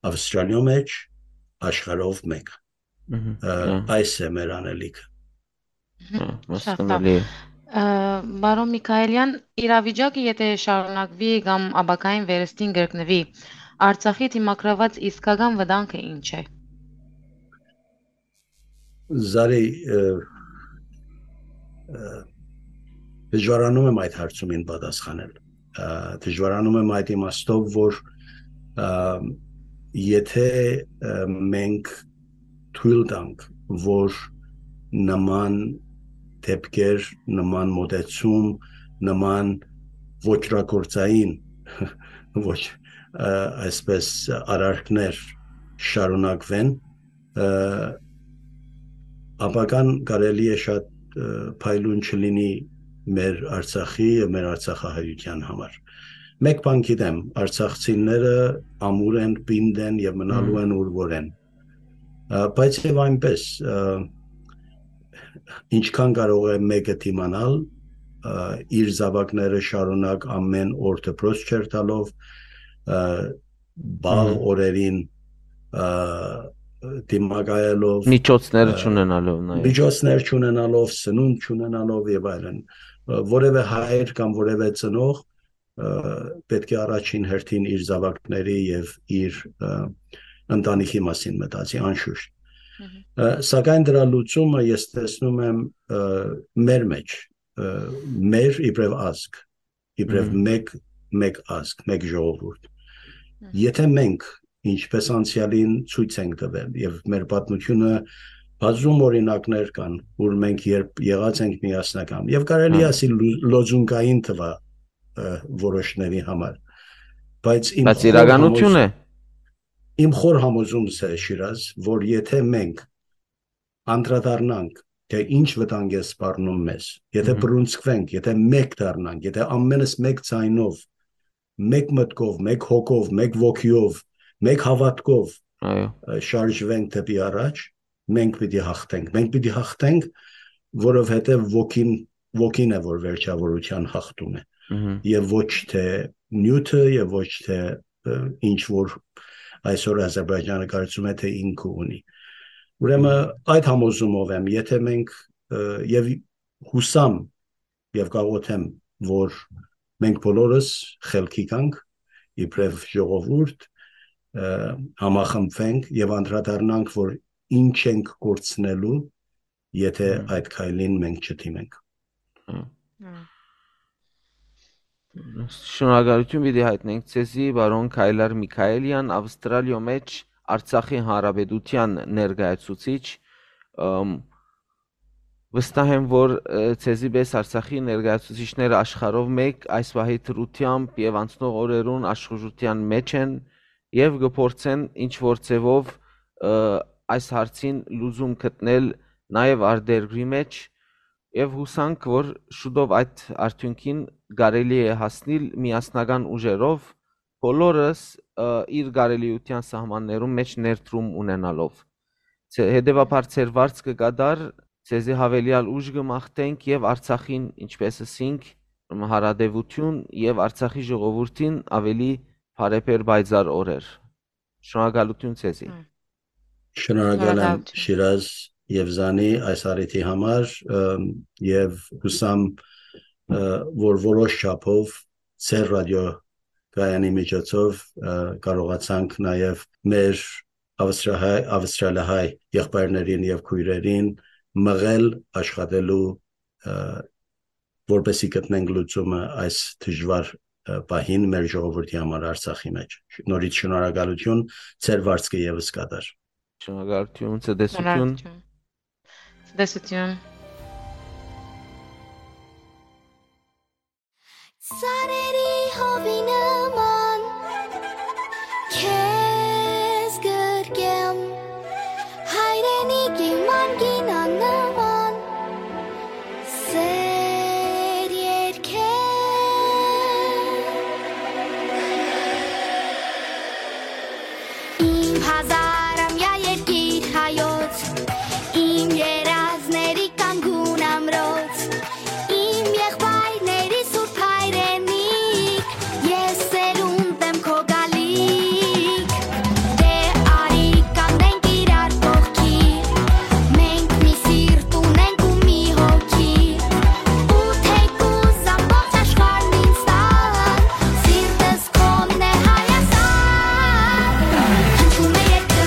Ավստրալիոյ մեջ, աշխարհով մեկ։ Մհմ, Ը, հա։ այս է մեր անելիքը։ Մհմ, հա, շատ լավ։ Հասկանալի է։ Ը, պարոն Միքայելյան, իրավիճակը եթե շարունակվի կամ ապագային վերստին կրկնվի, Արցախի դիմագրաված իսկական վտանգը ինչ է։ Զարի, ը, ը, դժվարանում եմ այդ հարցումին պատասխանել։ Ը, դժվարանում եմ այդ իմաստով, որ, ը, եթե, ը, մենք թույլ տանք, որ նման դեպքեր, նման մոտեցում, նման ոճրագործային, ոչ, ը, այսպես արարքներ շարունակվեն, ը, ապագան կարելի է շատ, ը, փայլուն չլինի մեր Արցախի եւ մեր արցախահայության համար։ Մեկ բան գիտեմ, արցախցիները ամուր են, պինդ են եւ մնալու Մհմ։ են ուր որ են։ Ա, բայց եւ այնպես, ա, ինչքան կարող է մեկը դիմանալ, ա, իր զավակները շարունակ ամեն օր դպրոց չերթալով, ա, բաղ Մհմ։ օրերին, ա, դիմակայելով, Միջոցները ա, չունենալով նաեւ։ միջոցներ չունենալով, սնունդ չունենալով եւ այլն, ա, որևէ հայր կամ որևէ ծնող ը, պէտք է առաջին հերթին իր զաւակների եւ իր, ը, ընտանիքի մասին մտածի, անշուշտ։ Մհմ։ Ը, սակայն դրա լուծումը ես տեսնում եմ, ը, մեր մեջ, ը, մեր իբրեւ ազգ, իբրեւ Մհմ։ մեկ, մեկ ազգ, մեկ ժողովուրդ։ Մհմ։ Եթե մենք, ինչպես անցեալին ցոյց ենք տվել, եւ մեր պատմությունը բազում օրինակներ կան, ուր մենք երբ եղած ենք միասնական, եւ կարելի է Հա։ ասել լու-, լոզունգային տվայ, ը, որոշների համար, բայց իմ Բայց խոր իրականություն համոզ-, է։ իմ խոր համոզումս է, Շիրազ, որ եթե մենք անդրադառնանք, թե ինչ վտանգ է սպառնում մեզ, եթե Մհմ։ բռունցքվենք, եթե մեկ դառնանք, եթե ամենս մեկ ձայնով, մեկ մտքով, մեկ հոգով, մեկ ոգիով, մեկ հավատքով, Այո։ ը, շարժվենք դեպի առաջ, մենք պիտի հաղթենք։ Մենք պիտի հաղթենք, որովհետեւ ոգին, ոգին է, որ վերջավորության հաղթում է, Մհմ։ եւ ոչ թե նիւթը, եւ ոչ թե, ը, ինչ որ այսօր Ազերբայջանը կարծում է, թե ինքը ունի։ Ուրեմն, Մհմ։ այդ համոզումով եմ, եթե մենք, ը, եւ հուսամ, եւ կաղոթեմ, որ մենք բոլորս խելքի գանք, իբրեւ ժողովուրդ, ը, համախմբվենք եւ անդրադառնանք, որ ինչ ենք կորցնելու, եթե Հմ։ այդ քայլին մենք չդիմենք։ Հմ։ Հմ։ Շնորհակալություն պիտի հայտնենք ձեզի, պարոն Քայլար Միքայելյան, Ավստրալիոյ մէջ Արցախի Հանրապետութեան ներկայացուցիչ, ըմ, վստահ եմ, որ, ը, ձեզի պէս Արցախի ներկայացուցիչները աշխարհով մէկ այս պահի դրությամբ եւ անցնող օրերուն աշխուժութեան մէջ են եւ կը փորձեն ինչ որ ձեւով, ը, այս հարցին լուծում գտնել նաեւ արտերկրի մէջ, եւ յուսանք, որ շուտով այդ արդիւնքին կարելի է հասնիլ միասնական ուժերով, բոլորս, ը, իր կարելիութեան սահմաններուն մէջ ներդրում ունենալով։ Ձե-, հետեւաբար ձեր վարձքը կատարի, ձեզի յաւելեալ ուժ կը մաղթենք եւ Արցախին, ինչպես ըսինք, հարատեւութիւն եւ Արցախի ժողովուրդին աւելի բարեբեր պայծառ օրեր։ Շնորհակալություն ձեզի։ Հմ։ Շնորհակալ եմ Շնորհակալություն։ Շիրազ եւ Զանի այս առիթի համար, ըմ, եւ յուսամ, ը, որ որոշ չափով ձեր ռադիոկայանի միջոցով, ը, կարողացանք նաեւ մեր ավստրահայ-, ավստրալիահայ եղբայրներին եւ քոյրերին մղել աշխատելու, ը, որպեսզի գտնենք լուծումը այս դժուար, ը, պահին մեր ժողովրդի համար Արցախի մեջ։ Նորից շնորհակալություն, ձեր վարձքը եւս կատարի։ Շնորհակալություն, ցտեսություն։ Շնորհակալություն։ Ցտեսություն։ Սարերի հովի նման քեզ գրկեմ, հայրենիքի մանկին աննման սեր երկեմ։ Իմ հազարամյա երկիր հայոց, իմ երազների կանգուն ամրոց, իմ եղբայրների սուրբ հայրենիք, ես սերունդ եմ քո գալիք։ Դե արի կանգնենք իրար կողքի, մենք մի սիրտ ունենք ու մի հոգի, ու թեկուզ ամբողջ աշխարհն ինձ տան, սիրտս քոնն է Հայաստան։ Հնչում է երգը,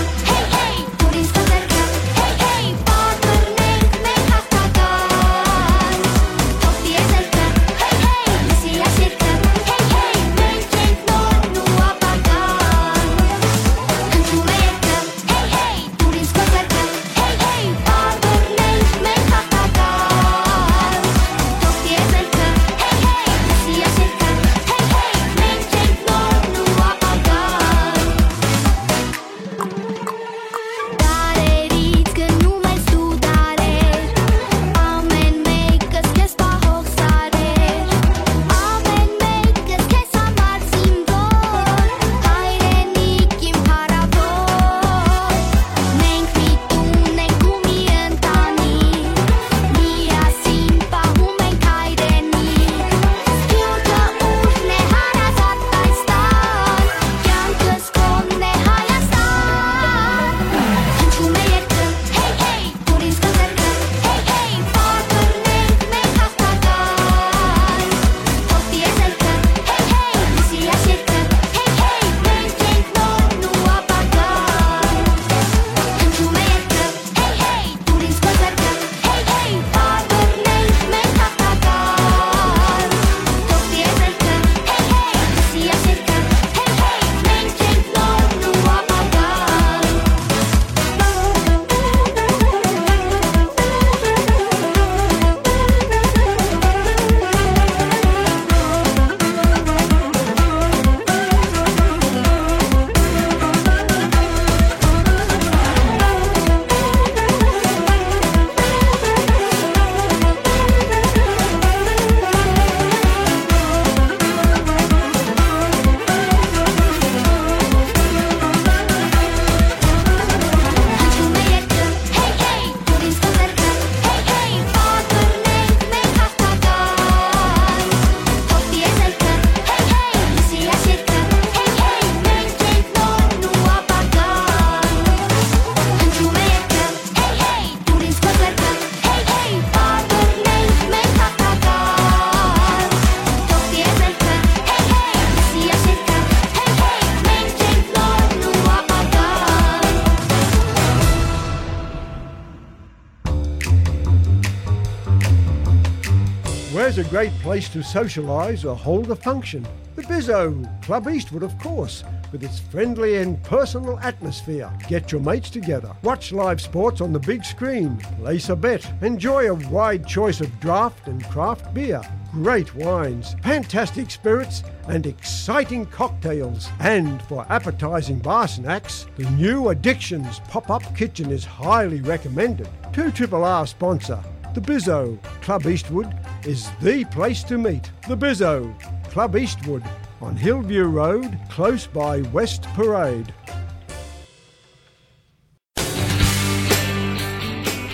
A great place to socialise or hold a function. The Bizzo, Club Eastwood, of course, with its friendly and personal atmosphere. Get your mates together, watch live sports on the big screen, place a bet, enjoy a wide choice of draft and craft beer, great wines, fantastic spirits, and exciting cocktails. And for appetising bar snacks, the new Addictions pop-up kitchen is highly recommended. Two Triple R sponsor, the Bizzo, Club Eastwood, is the place to meet. The Bizzo, Club Eastwood, on Hillview Road, close by West Parade.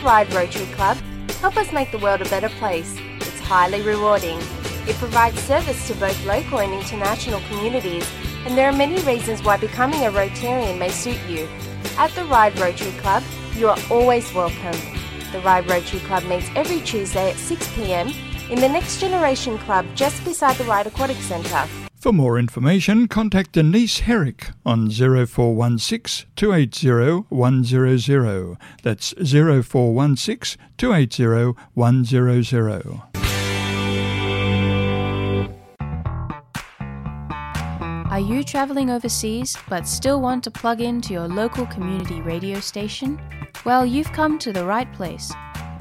Ride Rotary Club. Help us make the world a better place. It's highly rewarding. It provides service to both local and international communities, and there are many reasons why becoming a Rotarian may suit you. At the Ride Rotary Club, you are always welcome. The Ride Rotary Club meets every Tuesday at six p.m. in the Next Generation Club, just beside the Ride Aquatic Centre. For more information, contact Denise Herrick on zero four one six, two eight zero, one zero zero. That's zero four one six, two eight zero, one zero zero. Are you traveling overseas but still want to plug in to your local community radio station? Well, you've come to the right place.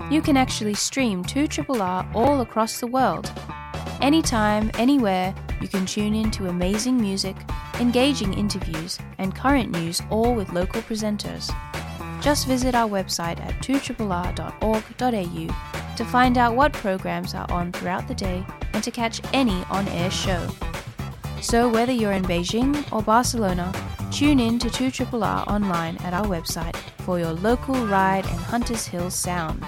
You can actually stream two triple R all across the world. Anytime, anywhere, you can tune in to amazing music, engaging interviews, and current news, all with local presenters. Just visit our website at two triple R dot org dot A U to find out what programs are on throughout the day and to catch any on-air show. So whether you're in Beijing or Barcelona, tune in to two triple R online at our website for your local Ride and Hunters Hill sound.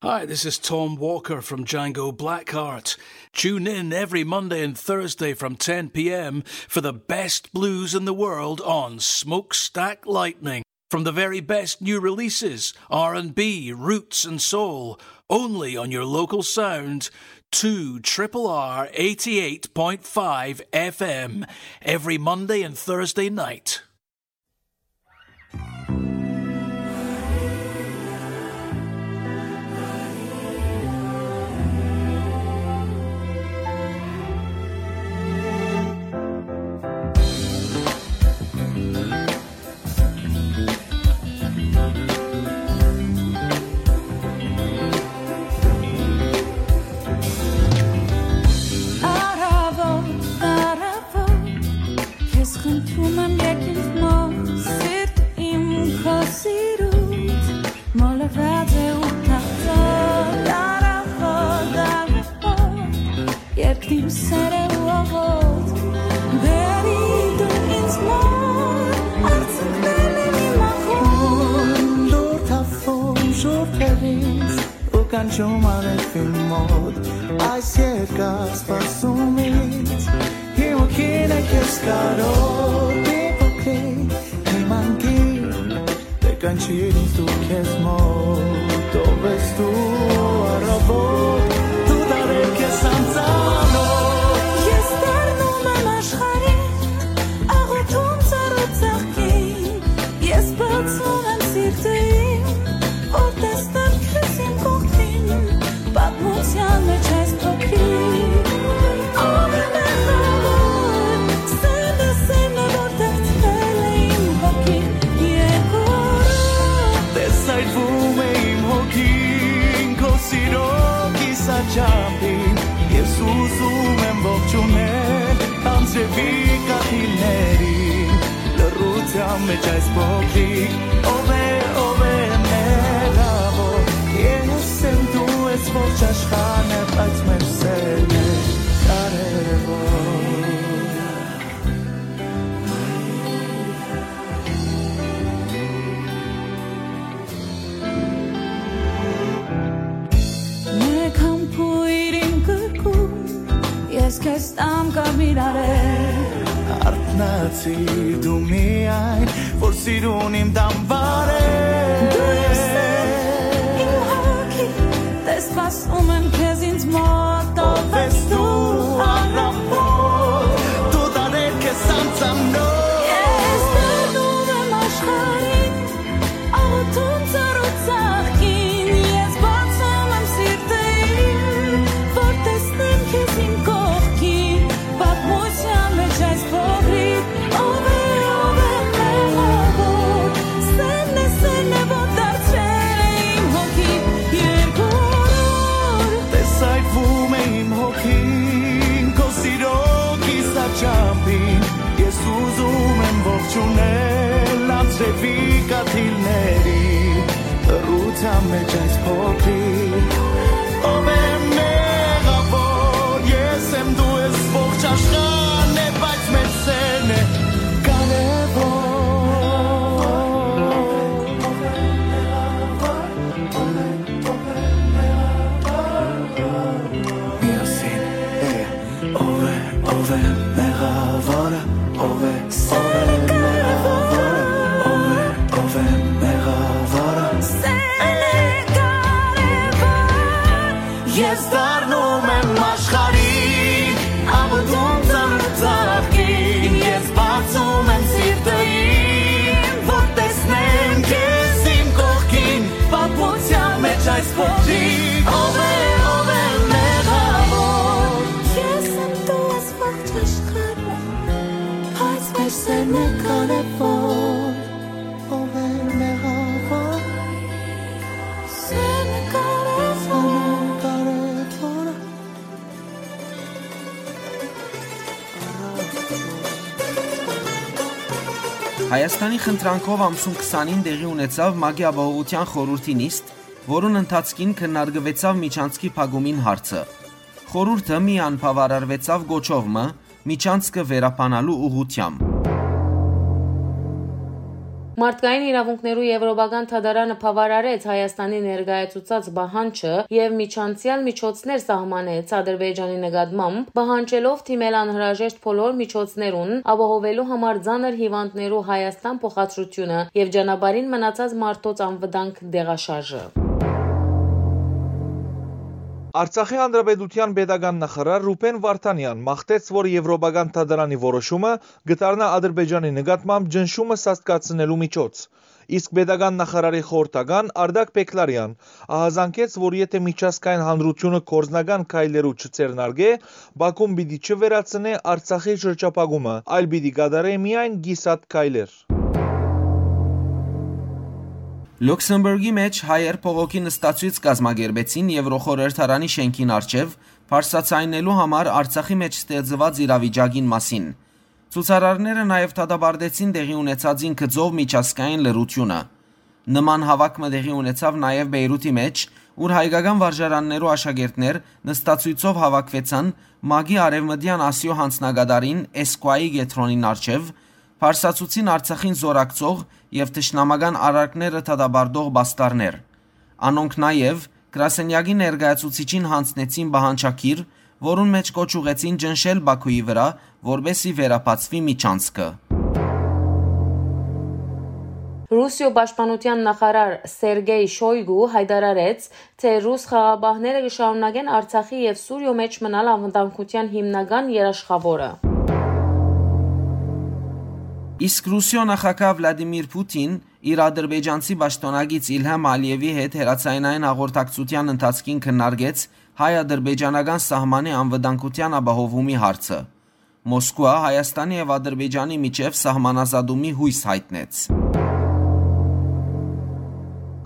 Hi, this is Tom Walker from Django Blackheart. Tune in every Monday and Thursday from ten p.m. for the best blues in the world on Smokestack Lightning. From the very best new releases, R and B, roots and soul, only on your local sound, two triple R eighty-eight point five F M, every Monday and Thursday night. Առաւոտ, առաւոտ, քեզ խնդրում եմ, եկիր մոտ, սիրտ իմ, քո սիրուց մոլորված է ու թախծոտ, առաւոտ, առաւոտ, երկրին սերը ու աղոտ, բերի դու ինձ մոտ, արցունքներն իմ ախոտ, դուր թափում շուրթերից ու կանչում արեւին մոտ, այս երկար սպասումից, հիմա քին է քեզ կարոտ, մի փոքրիկ, իմ անգիր, դե կանչիր ինձ դու քեզ մոտ, ով ես դու առաւոտ, դու դարեր քեզ անծանոթ։ Ես դառնում եմ աշխարհի, աղոթում ծառու ծաղկին, ես բացում եմ սիրտը իմ, որ տեսնեմ քեզ իմ կողքին, պատմության մեջ այս փոքրիկ։ Ով է մեղավոր, սերը, սերը, որ թաղցրել է իմ հոգին երկու օրով։ Տեսայթվում է իմ հոգին քո սիրո կիսաչափին, ես ուզում եմ ողջունել անձրևի կաթիլներին, լռության մեջ այս փոքրիկ, ով է, ով է մեղավոր, ես եմ, դու ես, ողջ աշխարհն է, բայց մեր սերն է կարևոր։ Մեկ համբույր իմ կրկում, ես քեզ տամ կարմիր արել։ Արթնացիր դու միայն, որ սիրուն իմ տան վարել։ Դու ես սեր, իմ հոգի, տես սպասում եմ քեզ ինձ մոտ, ով ես դու առաւոր, դու տարել քեզ անծանոթ։ Ես դառնում եմ աշխարհին, աղոթում ծառու Ունենալ ձեւի կաթիլների, լռութեան մէջ այս փոքրիկ, ով է մեղավոր, ես եմ, դու ես, ողջ աշխարհն է, բայց մեր սերն է կարեւոր։ Միասին, yeah. Ով է, ով է մեղավորը, ով է, ով է մեղավորը, ով է, ով է մեղավորը։ Սեն է կարեւոր։ Ես դառնում եմ աշխարհին, աբդում ծանր ծաղկին, ես բացում եմ սիրտը իմ, որ տեսնեմ քեզ իմ կողքին, պատմության մեջ այս փոքրիկ, ով է, ով է մեղավոր։ Ես եմ, դու ես, ողջ աշխարհը, բայց մեր սերն է կարեւոր։ Ով է մեղավոր, սերն է կարեւոր, կարեւոր։ Հայաստանի խնդրանքով ամսուն քսանին տեղի ունեցաւ ՄԱԿ-ի Ապահովութեան խորհուրդի նիստ, որուն ընթացքին քննարկուեցաւ միջանցքի փակումին հարցը։ Խորհուրդը միան բաւարարուեցաւ կոչով մը՝ միջանցքը վերաբանալու ուղղութեամբ։ Մարդկային իրաւունքներու Եվրոպական դատարանը բաւարարեց Հայաստանի ներկայացուցած պահանջը եւ միջանցեալ միջոցներ սահմանեց Ադրբեջանի նկատմամբ, պահանջելով դիմել անհրաժեշտ բոլոր միջոցներուն՝ ապահովելու համար ծանր հիւանդներու Հայաստան փոխադրությունը եւ ճանապարհին մնացած մարդոց անվտանգ տեղաշարժը։ Արցախի Հանրապետութեան պետական նախարար Ռուբեն Վարդանեան մաղթեց, որ Եվրոպական դատարանի որոշումը կը դառնայ Ադրբեջանի նկատմամբ ճնշումը սաստկացնելու միջոց։ Իսկ պետական նախարարի խորհրդական Արդակ Պեքլարեան ահազանգեց, որ եթէ միջազգային հանրութիւնը գործնական քայլերու չձեռնարկէ, Բաքուն պիտի չվերացնէ Արցախի շրջափակումը, այլ պիտի կատարէ միայն կիսատ քայլեր։ Լյուքսեմբուրգի մէջ հայեր փողոքի նստացոյց կազմակերպեցին Եվրոխորհրդարանի շէնքին առջեւ՝ բարձրաձայնելու համար Արցախի մէջ ստեղծուած իրավիճակին մասին։ Ցուցարարները նաեւ դատապարտեցին տեղի ունեցածին գծով միջազգային լռութիւնը։ Նման հաւաք մը տեղի ունեցաւ նաեւ Բեյրութի մէջ, ուր հայկական վարժարաններու աշակերտներ նստացոյցով հաւաքուեցան ՄԱԿ-ի Արեւմտեան Ասիոյ յանձնակատարին՝ էսկուայի կեդրոնին առջեւ, բարձրացուցին Արցախին զօրակցող եւ թշնամական արարքները դատապարտող պաստառներ։ Անոնք նաեւ Կրասենյակի ներկայացուցիչին յանձնեցին պահանջագիր, որուն մէջ կոչ ուղղեցին ճնշել Բաքուի վրայ, որպէս զի վերաբացուի միջանցքը։ Ռուսիոյ պաշտպանութեան նախարար Սերգեյ Շոյգու յայտարարեց, թէ ռուս խաղապահները կը շարունակեն Արցախի եւ Սուրիոյ մէջ մնալ անվտանգութեան հիմնական երաշխաւորը։ Իսկ Ռուսիոյ նախագահ Վլադիմիր Պուտին իր ադրբեջանցի պաշտօնակից Իլհամ Ալիևի հետ հեռաձայնային հաղորդակցութեան ընթացքին քննարկեց հայ-ադրբեջանական սահմանի անվտանգութեան ապահովումի հարցը։ Մոսկուա Հայաստանի եւ Ադրբեջանի միջեւ սահմանազատումի յոյս յայտնեց։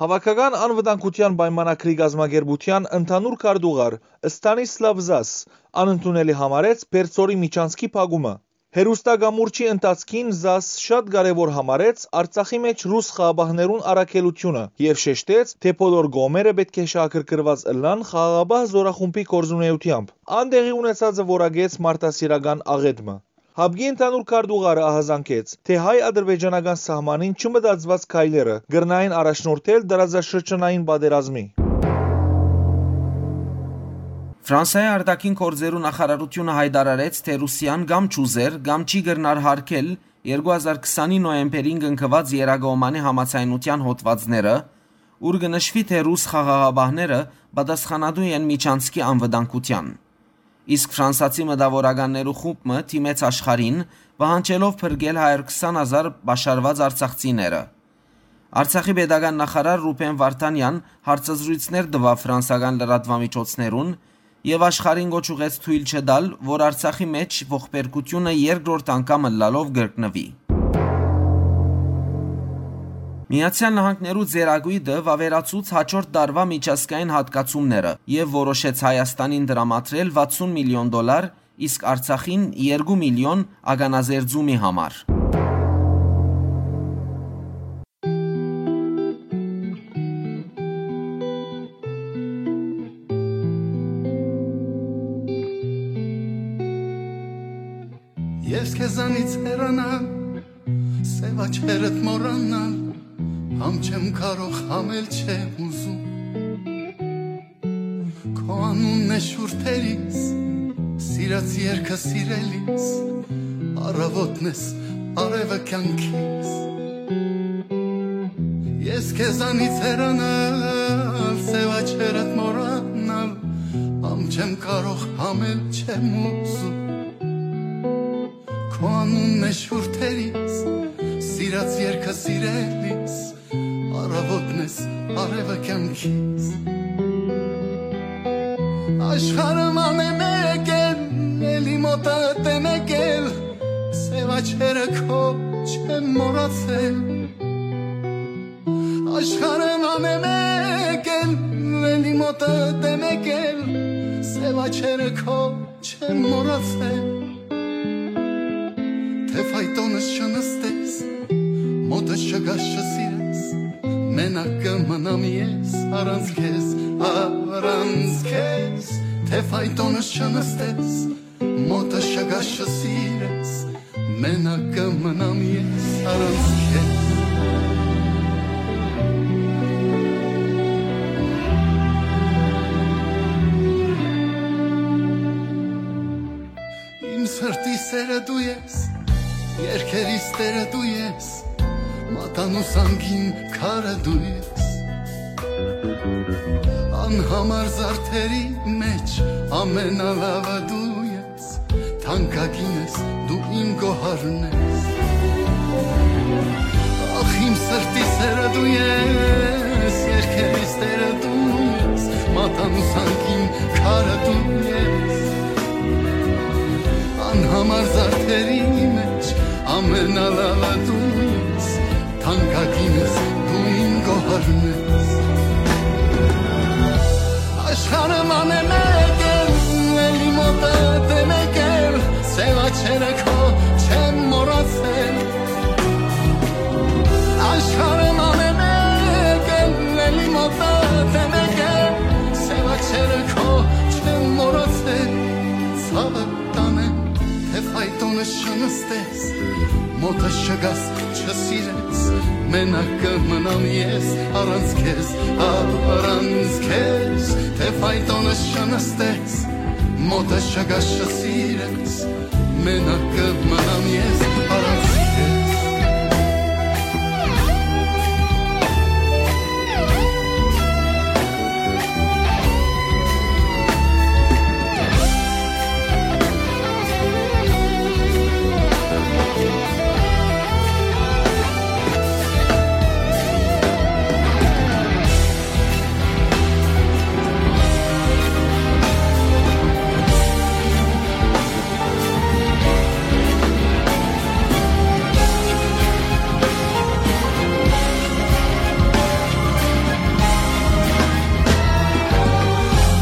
Հաւաքական անվտանգութեան պայմանագրի կազմակերպութեան ընդհանուր քարտուղար Ստանիսլաւ Զաս անընդունելի համարեց Պերձորի միջանցքի փակումը։ Հեռուստակամուրջի ընթացքին Զաս շատ կարեւոր համարեց Արցախի մէջ ռուս խաղապահներուն առաքելութիւնը եւ շեշտեց, թէ բոլոր կողմերը պէտք է շահագրգռուած ըլլան խաղաղապահ զօրախումբի գործունեութեամբ։ Ան տեղի ունեցածը որակեց մարդասիրական աղէտ մը։ Հապկի ընդհանուր քարտուղարը ահազանգեց, թէ հայ-ադրբեջանական սահմանին չմտածուած քայլերը կրնային առաջնորդել տարածաշրջանային պատերազմի։ Ֆրանսայի արտաքին գործերու նախարարութիւնը յայտարարեց, թէ Ռուսիան կամ չուզեր, կամ չի կրնար յարգել երկու հազար քսանի նոյեմբերին կնքուած Երակոմանի համաձայնութեան հոդվածները, ուր կը նշուի, թէ ռուս խաղաղապահները պատասխանատու են միջանցքի անվտանգութեան։ Իսկ ֆրանսացի մտաւորականներու խումբ մը դիմեց աշխարհին՝ պահանջելով փրկել հարիւր քսան հազար պաշարուած արցախցիները։ Արցախի պետական նախարար Ռուբեն Վարդանեան հարցազրոյցներ տուաւ ֆրանսական լրատուամիջոցներուն եւ աշխարհին կոչ ուղղեց թոյլ չտալ, որ Արցախի մէջ ողբերգությունը երկրորդ անգամ ըլլալով կրկնուի։ Միացեալ Նահանգներու ծերակոյտը վաւերացուց հաջորդ տարուայ միջազգային յատկացումները եւ որոշեց Հայաստանին տրամադրել վաթսուն միլիոն դոլար, իսկ Արցախին՝ երկու միլիոն՝ ականազերծումի համար։ Ես քեզանից հեռանալ, սեւ աչքերդ մոռանալ, համ չեմ կարող, համ էլ չեմ ուզում։ Քո անունն է շուրթերիս, սիրած երկը սիրելիս, առավոտն ես արևը կյանքիս։ Ես քեզանից հեռանալ, սեւ աչքերդ մոռանալ, համ չեմ կարող, համ էլ չեմ ուզում։ Քո անունն է շուրթերիս, սիրած երկը սիրելիս, առավոտն ես արևը կյանքիս։ Աշխարհը ման է մեկ էլ, էլի մոտդ է մեկ էլ, սեւ աչքերը քո չեմ մոռացել։ Աշխարհը ման է մեկ էլ, էլի մոտդ է մեկ էլ, սեւ աչքերը քո չեմ մոռացել։ Թէ ֆայտոնս չնստես, մոտս չգաս, չսիրես, մենակ կը մնամ ես առանց քեզ, առանց քեզ։ Թէ ֆայտոնս չնստես, մոտս չգաս, չսիրես, մենակ կը մնամ ես առանց քեզ։ Իմ սրտի սերը դու ես, երկերիս տերը դու ես, մատանու սանքին քարը դու ես։ Անհամար զարդերի մեջ ամենալավը դու ես, թանկագին ես, դու իմ գոհարն ես։ Ախ, իմ սրտի սերը դու ես, երկերիս տերը դու ես, մատանու սանքին քարը դու ես։ Անհամար զարդերի մեջ ամենալավը դու ես, թանկագին ես, դու իմ գոհարն ես։ Աշխարհը ման է մեկ էլ, էլի մոտդ է մեկ էլ, սեւ աչքերը քո չեմ մոռացել։ Աշխարհը ման է մեկ էլ, էլի մոտդ է մեկ էլ, սեւ աչքերը քո չեմ մոռացել։ Ցաւը տանեմ, թէ ֆայտոնս չնստես, մոտս չգաս, չսիրես, մենակ կը մնամ ես առանց քեզ, առանց քեզ, թէ ֆայտոնս չնստես, մոտս չգաս, չսիրես, մենակ կը մնամ ես առանց քեզ։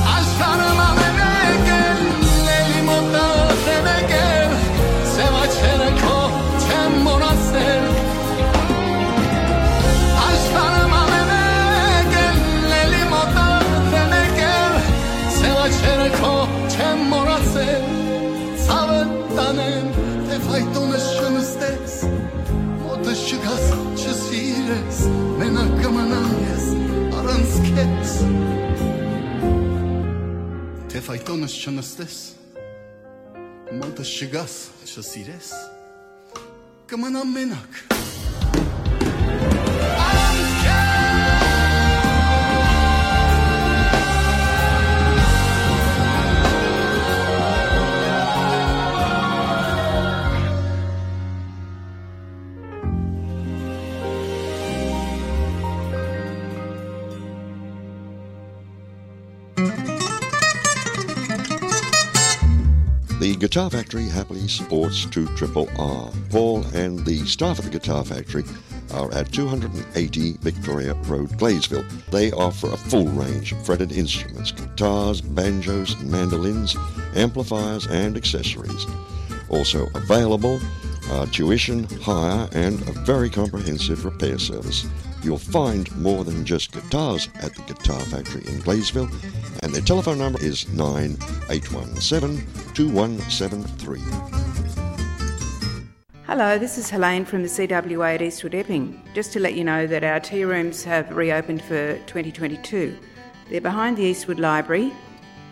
Աշխարհը ման է մեկ էլ, էլի մոտդ է մեկ էլ, սեւ աչքերը քո չեմ մոռացել։ Աշխարհը ման է մեկ էլ, էլի մոտդ է մեկ էլ, սեւ աչքերը քո չեմ մոռացել։ Ցաւը տանեմ, թէ ֆայտոնս չնստես, մոտս չգաս, չսիրես, մենակ կը մնամ ես առանց քեզ։ Թէ ֆայտոնս չնստես, մոտս չգաս, չսիրես, կը մնամ մենակ։ The Guitar Factory happily supports two triple R. Paul and the staff at the Guitar Factory are at two hundred and eighty Victoria Road, Gleysville. They offer a full range of fretted instruments, guitars, banjos, mandolins, amplifiers, and accessories. Also available are tuition, hire, and a very comprehensive repair service. You'll find more than just guitars at the Guitar Factory in Gleysville, and their telephone number is nine eight one seven two one seven three. Hello, this is Helene from the C W A at Eastwood Epping. Just to let you know that our tea rooms have reopened for twenty twenty-two. They're behind the Eastwood Library,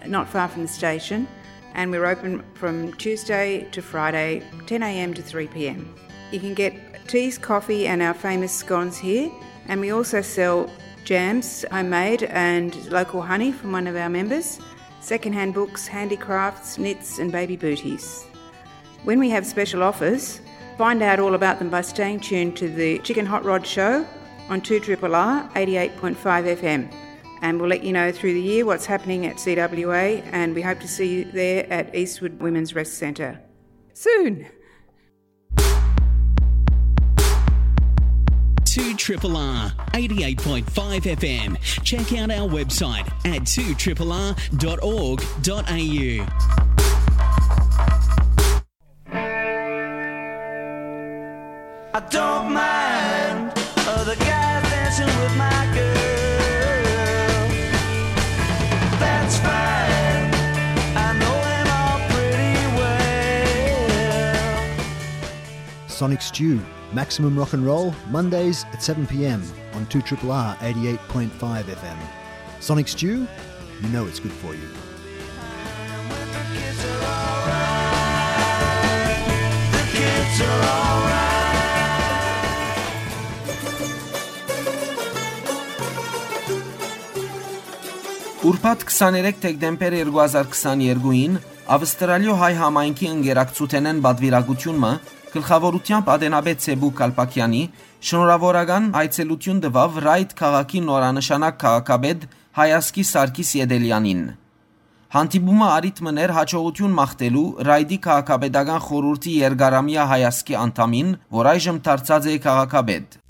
not far from the station, and we're open from Tuesday to Friday, ten a.m. to three p.m. You can get teas, coffee, and our famous scones here, and we also sell jams, homemade and local honey from one of our members, secondhand books, handicrafts, knits, and baby booties. When we have special offers, find out all about them by staying tuned to the Chicken Hot Rod Show on two triple R eighty-eight point five F M. And we'll let you know through the year what's happening at C W A, and we hope to see you there at Eastwood Women's Rest Centre soon. Two triple R, eighty-eight point five F M. Check out our website at two triple R dot org dot A U. I don't mind other guys dancing with my girl. That's fine. I know him all pretty well. Sonic Stew, maximum rock and roll, Mondays at seven p.m. on two triple R eighty-eight point five F M. Sonic Stew, you know it's good for you. Ուրբաթ քսաներեք դեկտեմբեր երկու հազար քսաներկուին Ավստրալիոյ հայ համայնքի ընկերակցութենէն պատվիրակութիւն մը գլխաւորութեամբ ատենապետ Սեբու Կալպակեանի շնորհաւորական այցելութիւն տուաւ Ռայդ քաղաքի նորանշանակ քաղաքապետ Հայասկի Սարգիս Ետելեանին։ Հանդիպումը առիթ մըն էր յաջողութիւն մաղթելու Ռայդի քաղաքապետական խորհուրդի երկարամեայ Հայասկի անդամին, որ այժմ դարձած է քաղաքապետ։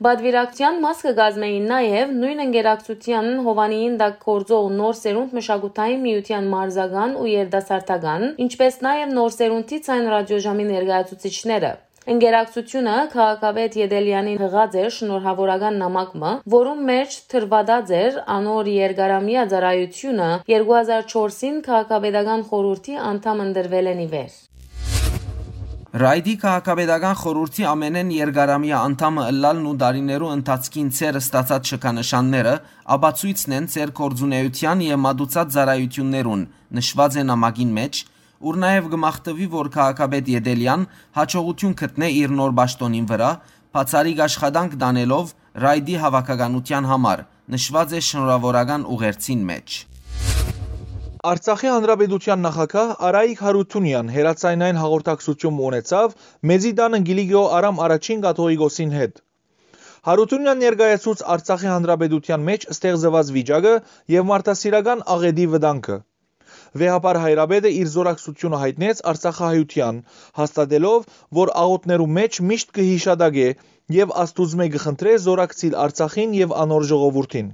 Պատվիրակութեան մաս կը կազմէին նաեւ նոյն ընկերակցութեան հովանիին տակ գործող Նոր Սերունդ մշակութային միութեան մարզական ու երիտասարդական, ինչպէս նաեւ Նոր Սերունդի ձայն ռադիոժամի ներկայացուցիչները։ Ընկերակցութիւնը քաղաքապետ Ետելեանին յղած էր շնորհաւորական նամակ մը, որուն մէջ դրուադած էր անոր երկարամեայ ծառայութիւնը երկու հազար չորսին քաղաքապետական խորհուրդի անդամ ընտրուելէն ի վեր։ Ռայդի քաղաքապետական խորհուրդի ամէնէն երկարամեայ անդամը ըլլալն ու տարիներու ընթացքին ձեր ստացած շքանշանները ապացոյցն են ձեր գործունէութեան եւ մատուցած ծառայութիւններուն, նշուած է նամակին մէջ, ուր նաեւ կը մաղթուի, որ քաղաքապետ Ետելեան յաջողութիւն գտնէ իր նոր պաշտօնին վրայ, բացառիկ աշխատանք տանելով Ռայդի հաւաքականութեան համար, նշուած է շնորհաւորական ուղերձին մէջ։ Արցախի Հանրապետութեան նախագահ Արայիկ Հարութունեան հեռաձայնային հաղորդակցութիւն ունեցաւ Մեծի տանը Կիլիկիոյ Արամ առաջին կաթողիկոսին հետ։ Հարութունեան ներկայացուց Արցախի Հանրապետութեան մէջ ստեղծուած վիճակը եւ մարդասիրական աղէտի վտանգը։ Վեհափառ հայրապետը իր զորակցութիւնը յայտնեց արցախահայութեան, հաստատելով, որ աղօթքներու մէջ միշտ կը յիշատակէ եւ Աստուծմէ կը խնդրէ զորակցիլ Արցախին եւ անոր ժողովուրդին։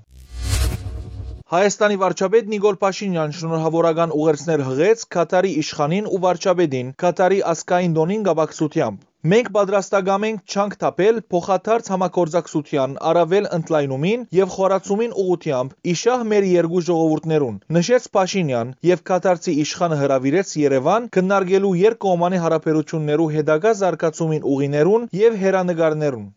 Հայաստանի վարչապետ Նիկոլ Փաշինեան շնորհաւորական ուղերձներ յղեց Քաթարի իշխանին ու վարչապետին Քաթարի ազգային տօնին կապակցութեամբ։ «Մենք պատրաստակամ ենք ջանք թափել փոխադարձ համագործակցութեան առավել ընդլայնումին եւ խորացումին ուղղութեամբ ի շահ մեր երկու ժողովուրդներուն», նշեց Փաշինեան, եւ քաթարցի իշխանը հրաւիրեց Երեւան քննարկելու երկկողմանի յարաբերութիւններու հետագայ զարգացումին ուղիներուն եւ հեռանկարներուն։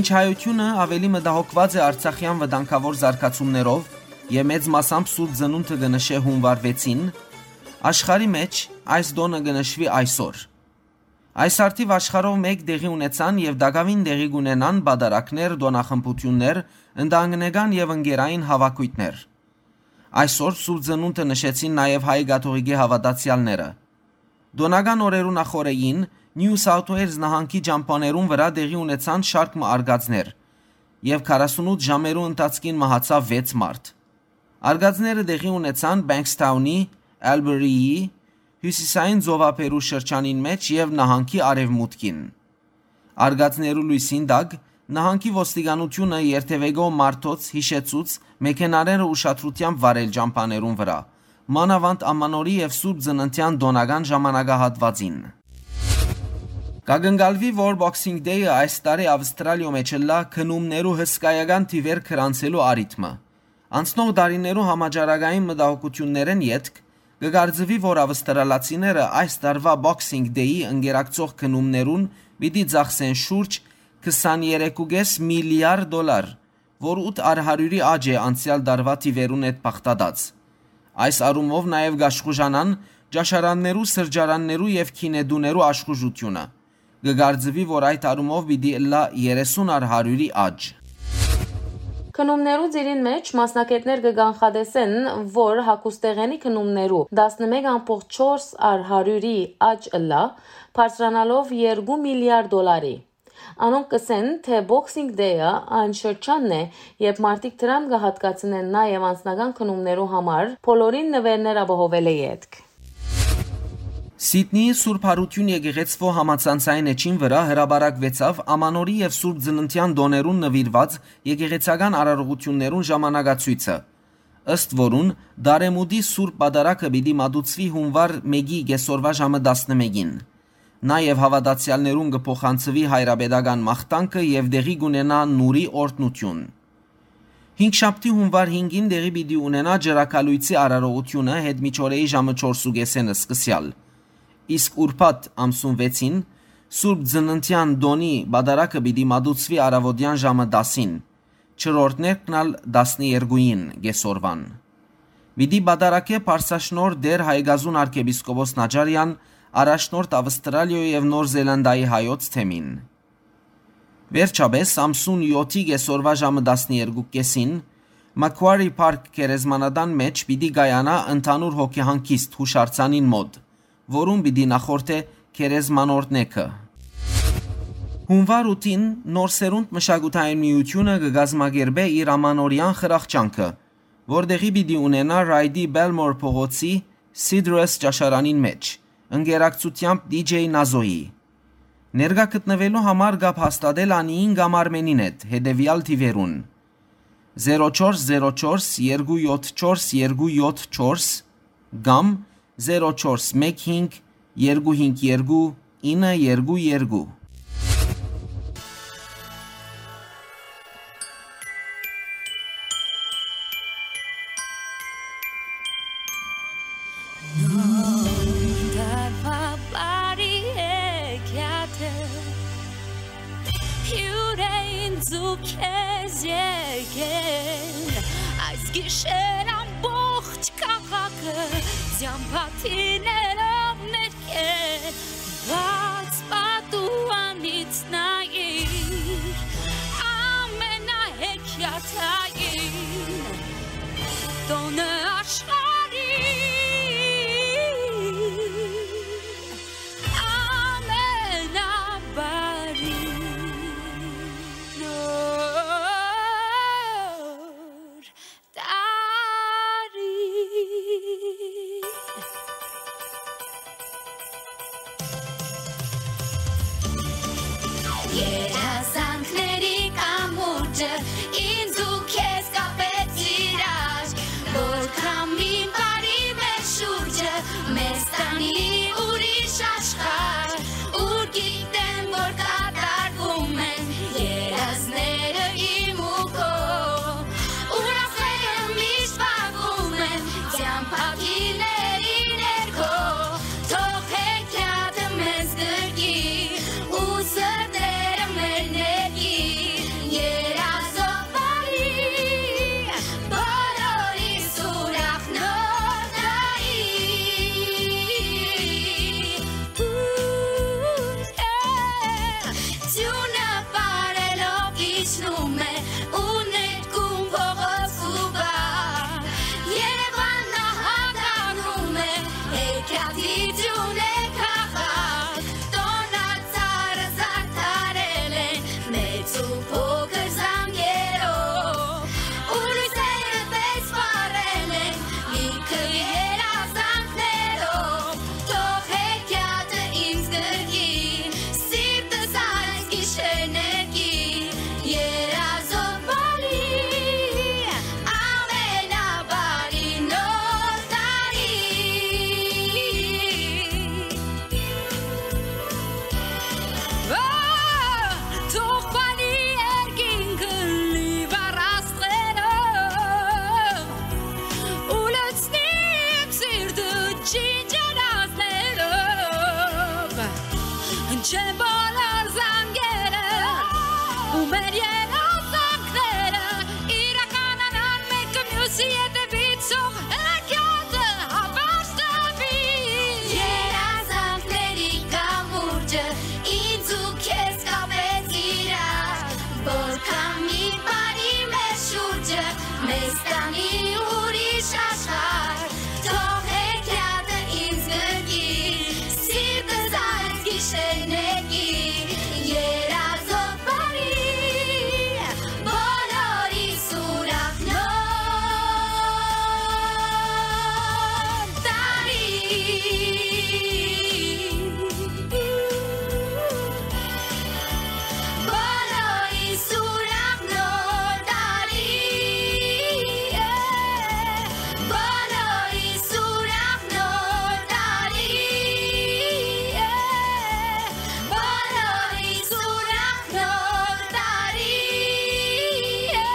Մինչ հայութիւնը աւելի մտահոգուած է արցախեան վտանգաւոր զարգացումներով եւ մեծ մասամբ Սուրբ Ծնունդը կը նշէ յունուար վեցին, աշխարհի մէջ այս տօնը կը նշուի այսօր։ Այս առթիւ աշխարհով մէկ տեղի ունեցան եւ տակաւին տեղի կ'ունենան պատարագներ, տօնախմբութիւններ, ընտանեկան եւ ընկերային հաւաքոյթներ։ Այսօր Սուրբ Ծնունդը նշեցին նաեւ հայ կաթողիկէ հաւատացեալները։ Տօնական օրերու նախօրեին Նիու Սաութ Ուէյլզ նահանգի ճամբաներուն վրայ տեղի ունեցան շարք մը արկածներ եւ քառասունութ ժամերու ընթացքին մահացաւ վեց մարդ։ Արկածները տեղի ունեցան Բենքսթաունի, Ալբերիի, հիւսիսային ծովափերու շրջանին մէջ եւ նահանգի արեւմուտքին։ Արկածներու լոյսին տակ նահանգի ոստիկանութիւնը երթեւեկող մարդոց յիշեցուց մեքենաները ուշադրութեամբ վարել ճամբաներուն վրայ, մանաւանդ Ամանորի եւ Սուրբ Ծննդեան տօնական ժամանակահատուածին։ Կակնկալուի, որ Boxing Day-ը այս տարի Ավստրալիոյ մէջ ըլլայ գնումներու հսկայական թիւեր գրանցելու առիթ մը։ Անցնող տարիներու համաճարակային մտահոգութիւններէն ետք, կը կարծուի, որ ավստրալացիները այս տարուայ Boxing Day-ի ընկերակցող գնումներուն պիտի ծախսեն շուրջ քսաներեք ու կէս միլիարդ դոլար, որ ութ առ հարիւրի աճ է անցեալ տարուայ թիւերուն հետ բաղդատած։ Այս առումով նաեւ կաշխուժանան ճաշարաններու, սրճարաններու եւ գինետուներու աշխուժութիւնը։ Կը կարծուի, որ այդ առումով պիտի ըլլայ երեսուն առ հարիւրի աճ։ Գնումներու ծիրին մէջ մասնագէտներ կը կանխատեսեն, որ հագուստեղէնի գնումներու տասնմէկ ամբողջ չորս առ հարիւրի աճ ըլլայ, բարձրանալով երկու միլիարդ դոլարի։ Անոնք կ'ըսեն, թէ Boxing Day-ը այն շրջանն է, երբ մարդիկ դրամ կը յատկացնեն նաեւ անձնական գնումներու համար, բոլորին նուէրներ ապահովելէ ետք։ Սիդնիի Սուրբ Յարութիւն եկեղեցւոյ համացանցային էջին վրայ հրապարակուեցաւ Ամանորի եւ Սուրբ Ծննդեան տօներուն նուիրուած եկեղեցական արարողութիւններուն ժամանակացոյցը, ըստ որուն Դարեմուտի Սուրբ Պատարագը պիտի մատուցուի յունուար մէկի կէսօրուայ ժամը տասնմէկին։ Նաեւ հաւատացեալներուն կը փոխանցուի հայրապետական մաղթանքը եւ տեղի կ'ունենայ նուրի օրհնութիւն։ Հինգշաբթի յունուար հինգին տեղի պիտի ունենայ ճրագալոյցի արարողութիւնը յետմիջօրեի ժամը չորս ու կէսէն սկսեալ, իսկ ուրբաթ ամսուն վեցին Սուրբ Ծննդեան տօնի պատարագը պիտի մատուցուի առաւօտեան ժամը տասին, չորրորդներկն ալ տասներկուին կէսօրուան։ Պիտի պատարագէ Պարսաշնորհ Տէր Հայկազուն արքեպիսկոպոս Նաճարեան, առաջնորդ Ավստրալիոյ եւ Նոր Զելանդայի հայոց թեմին։ Վերջապէս, ամսուն եօթի կէսօրուայ ժամը տասներկու կէսին, Macquarie Park գերեզմանատան մէջ պիտի կայանայ ընդհանուր հոգեհանգիստ յուշարձանին մօտ, որուն պիտի նախորդէ գերեզմանորդ նեքը։ Յունուար ութին Նոր Սերունդ մշակութային միութիւնը կը կազմակերպէ իր ամանորեան խրախճանքը, որ տեղի պիտի ունենայ Ռայդի Բելմոր փողոցի Sidrus ճաշարանին մէջ, ընկերակցութեամբ D J Nazo-ի։ Ներկայ գտնուելու համար կապ հաստատել Անիին կամ Արմենին հետ հետեւեալ թիւերուն՝ զերո չորս զերո չորս երկու յոթ չորս երկու յոթ չորս կամ զերո չորս մեկ հինգ երկու հինգ երկու ինը երկու երկու։ Նոր տարուայ բարի եկեալը, հիւր է ինձ ու քեզ եկել, այս գիշեր ամբողջ քաղաքը, ծամբատիներով ներկել, բաց պատուանից նայիր, ամենահեքիաթային տօնը աշխարհի ամենաբարի նոր տարի։ Երազանքների կամուրջը ինձ ու քեզ կապեց իրար, որ քամի բարի մեր շուրջը մեզ տանի ուրիշ աշխարհ, ուր գիտեմ, որ կատարվում են երազները իմ ու քո։ Ուրախները միշտ վառում են, ծամբակիների ներքո, թող հեքիաթը մեզ գրկի, ու սրտերը մեր ներկի, Չինչերազներով հնչեն բոլոր զանգերը, ու մեր երազանքները իրականանան մեկը մյուսի հետևից, թող հեքիաթը հապարտ տապի։ Երազանքների կամուրջը ինձ ու քեզ կապեց իրար, որքան մի բարի մեր շուրջը մեզ տանի ուրիշ աշխարհ։ Թող հեքիաթը ինձ գրկի, սիրտս այս գիշեր նեղի, երազող բարի, բոլորի սուրախ նոր տարի։ Բոլորի սուրախ նոր տարի է, բոլորի սուրախ նոր տարի է, բոլորի սուրախ նոր տարի է։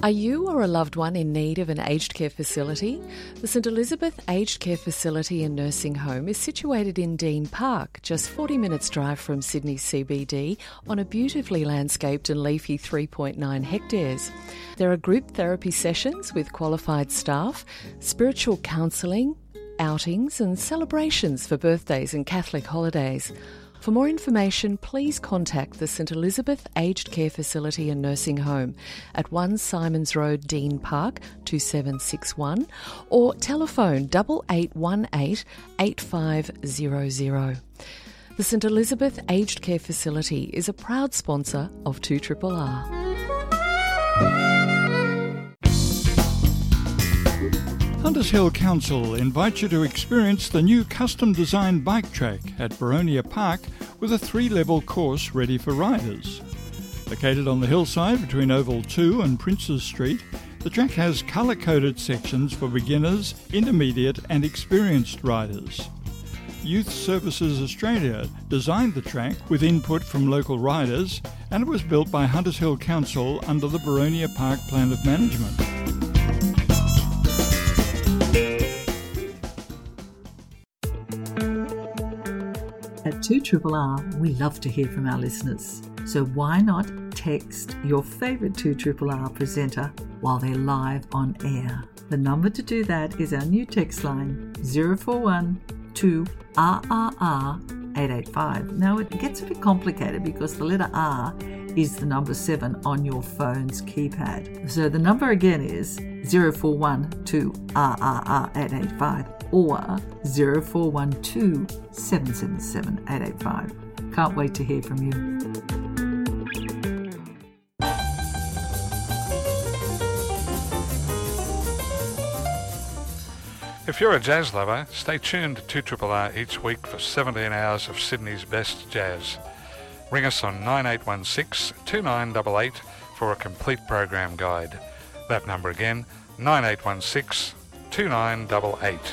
Are you or a loved one in need of an aged care facility? The St Elizabeth Aged Care Facility and Nursing Home is situated in Dean Park, just forty minutes' drive from Sydney C B D, on a beautifully landscaped and leafy three point nine hectares. There are group therapy sessions with qualified staff, spiritual counselling, outings and celebrations for birthdays and Catholic holidays. For more information, please contact the St Elizabeth Aged Care Facility and Nursing Home at one Simons Road, Dean Park, two seven six one, or telephone double eight one eight eight five zero zero. The St Elizabeth Aged Care Facility is a proud sponsor of two triple R. Hunters Hill Council invites you to experience the new custom-designed bike track at Boronia Park with a three-level course ready for riders. Located on the hillside between Oval two and Princes Street, the track has colour-coded sections for beginners, intermediate and experienced riders. Youth Services Australia designed the track with input from local riders, and it was built by Hunters Hill Council under the Boronia Park Plan of Management. At two triple R, we love to hear from our listeners. So why not text your favourite two triple R presenter while they're live on air? The number to do that is our new text line, zero four one two R R R eight eight five. Now, it gets a bit complicated because the letter R is the number seven on your phone's keypad. So the number again is zero four one two R R R eight eight five or zero four one two seven seven seven eight eight five. Can't wait to hear from you. If you're a jazz lover, stay tuned to two triple R each week for seventeen hours of Sydney's best jazz. Ring us on nine eight one six two nine double eight for a complete program guide. That number again, nine eight one six two nine double eight.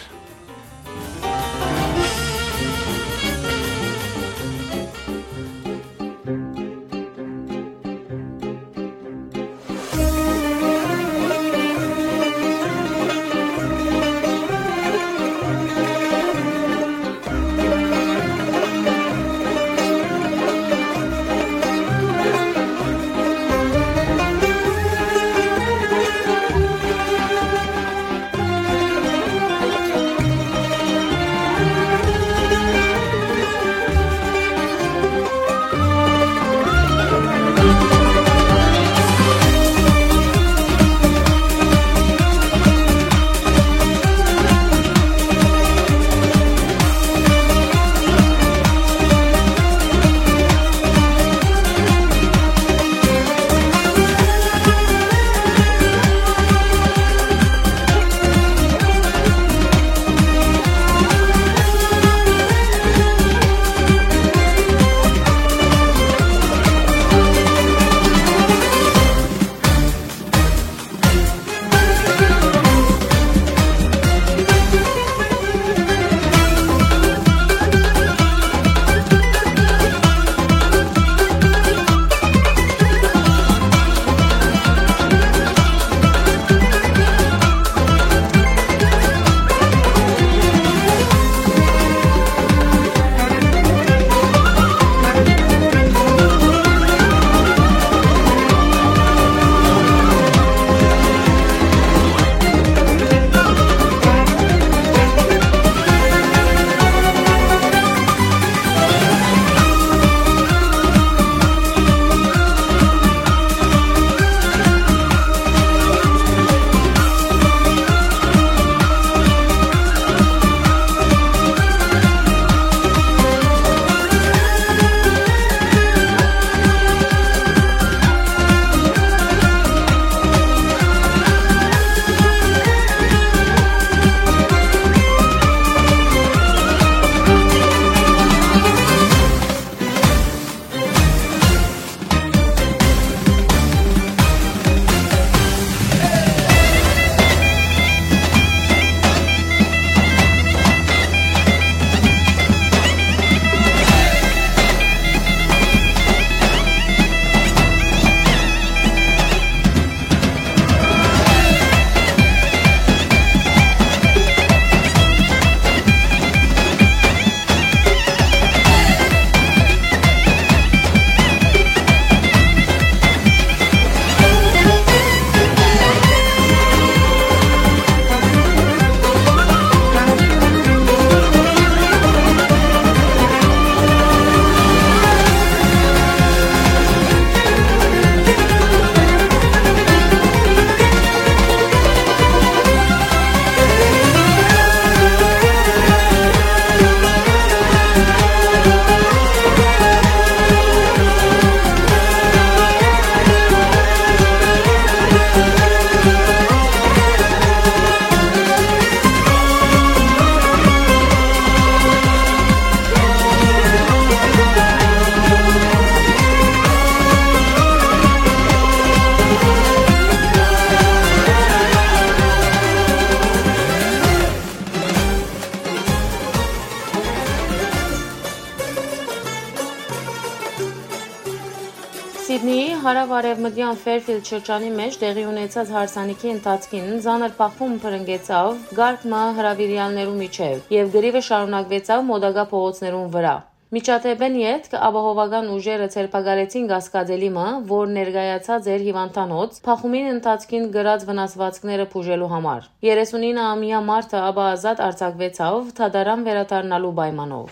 Սիդնիի հարաւարեւմտեան Ֆերֆիլդ շրջանի մէջ տեղի ունեցած հարսանիքի ընթացքին ծանր բախում բռնկեցաւ կարգ մը հրաւիրեալներու միջեւ եւ կռիւը շարունակուեցաւ մօտակայ փողոցներուն վրայ։ Միջադէպէն ետք ապահովական ուժերը ձերբակալեցին կասկածելի մը, որ ներկայացած էր հիւանդանոց, բախումին ընթացքին կրած վնասուածքները բուժելու համար։ Երեսունինը ամեայ մարդը ապա ազատ արձակուեցաւ՝ դատարան վերադառնալու պայմանով։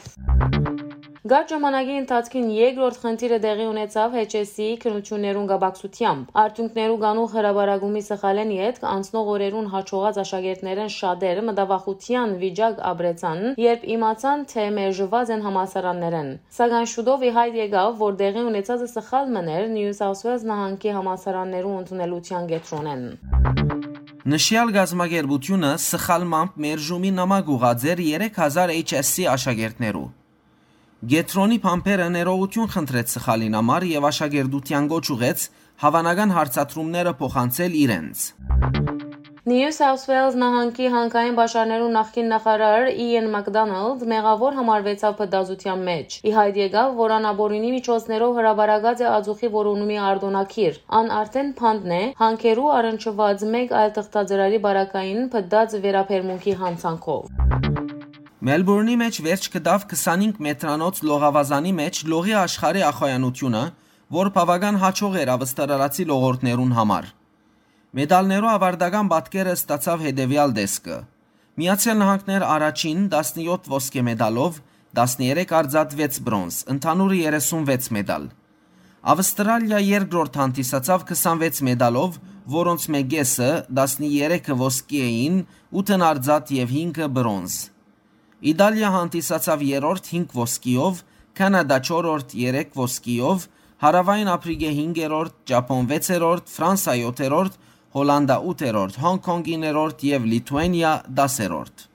Կարճ ժամանակի ընթացքին երկրորդ խնդիրը տեղի ունեցաւ H S C-ի քննութիւններուն կապակցութեամբ։ Արդիւնքներու կանուխ հրապարակումի սխալէն ետք անցնող օրերուն յաջողած աշակերտներէն շատեր մտավախութեան վիճակ ապրեցան, երբ իմացան, թէ մերժուած են համալսարաններէն։ Սակայն շուտով ի յայտ եկաւ, որ տեղի ունեցածը սխալ մըն էր Նիու Սաութ Ուէլզ նահանգի համալսարաններու ընդունելութեան կեդրոնէն։ Նշեալ կազմակերպութիւնը սխալմամբ մերժումի նամակ ուղղած էր երեք հազար H S C աշակերտներու։ Կեդրոնի բանբերը ներողութիւն խնդրեց սխալին համար եւ աշակերտութեան կոչ ուղղեց հաւանական հարցադրումները փոխանցել իրենց։ Նիու Սաութ Ուէլզ նահանգի հանքային պաշարներու նախկին նախարար Իեն Մակդոնալդ մեղաւոր համարուեցաւ փտածութեան մէջ։ Ի յայտ եկաւ, որ ան ապօրինի միջոցներով հրապարակած է ածուխի որոնումի արտօնագիր։ Ան արդէն բանտն է, հանքերու առնչուած մէկ այլ թղթածրարի պարագային փտած վերաբերմունքի յանցանքով։ Մելբուրնի մէջ վերջ գտաւ քսանհինգ մետրանոց լողավազանի մէջ լողի աշխարհի ախոյանութիւնը, որ բաւական յաջող էր ավստրալացի լողորդներուն համար։ Մեդալներու աւարտական պատկերը ստացաւ հետեւեալ տեսքը։ Միացեալ Նահանգներ առաջին, տասնեօթ ոսկէ մեդալով, տասներեք արծաթ, վեց բրոնզ, ընդհանուրը երեսունվեց մեդալ։ Ավստրալիա երկրորդ հանդիսացաւ քսանվեց մեդալով, որոնցմէ կէսը, տասներեքը ոսկի էին, ութն արծաթ եւ հինգը բրոնզ։ Իտալիա հանդիսացաւ երրորդ հինգ ոսկիով, Քանադա չորրորդ երեք ոսկիով, Հարաւային Ափրիկա հինգերորդ, Ճապոն վեցերորդ, Ֆրանսա յոթերորդ, Հոլանտա ութերորդ, Հոնկ Կոնկ իններորդ եւ Լիթուանիա դասերորդ։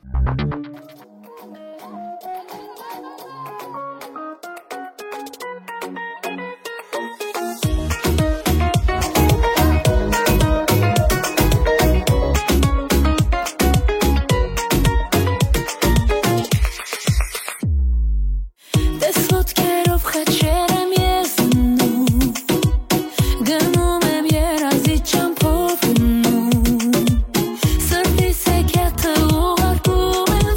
Տես ոտքերով խաչեր եմ ես դնում, գնում եմ երազի ճամփով գնում, սրտիս հեքիաթը ուղարկում եմ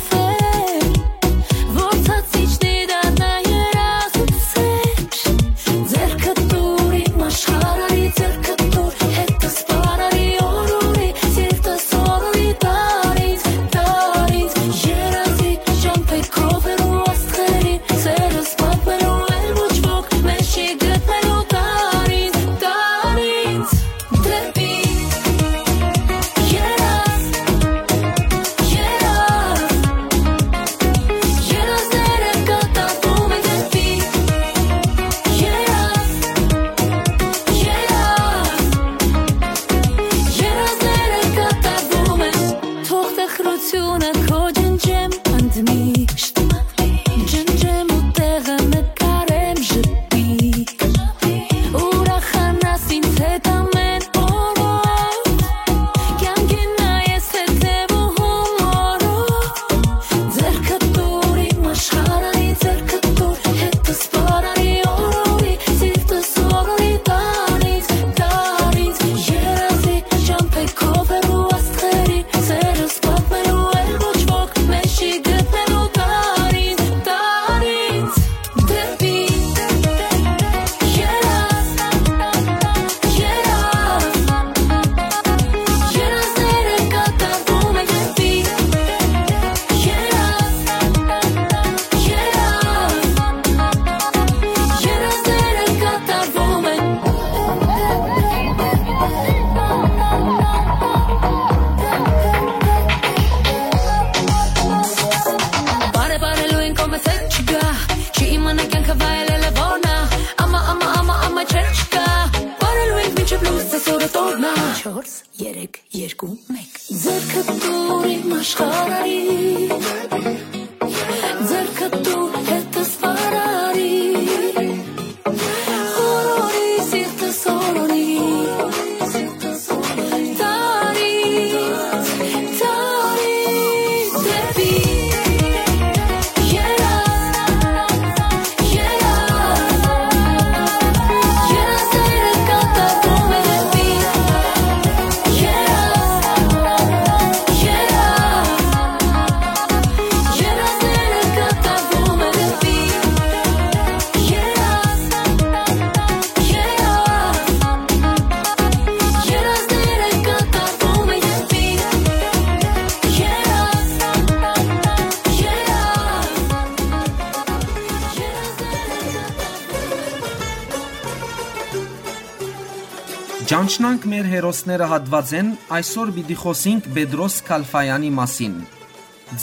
Ճանչնանք մեր հերոսները հատուածէն, այսօր պիտի խօսինք Պետրոս Քալֆաեանի մասին։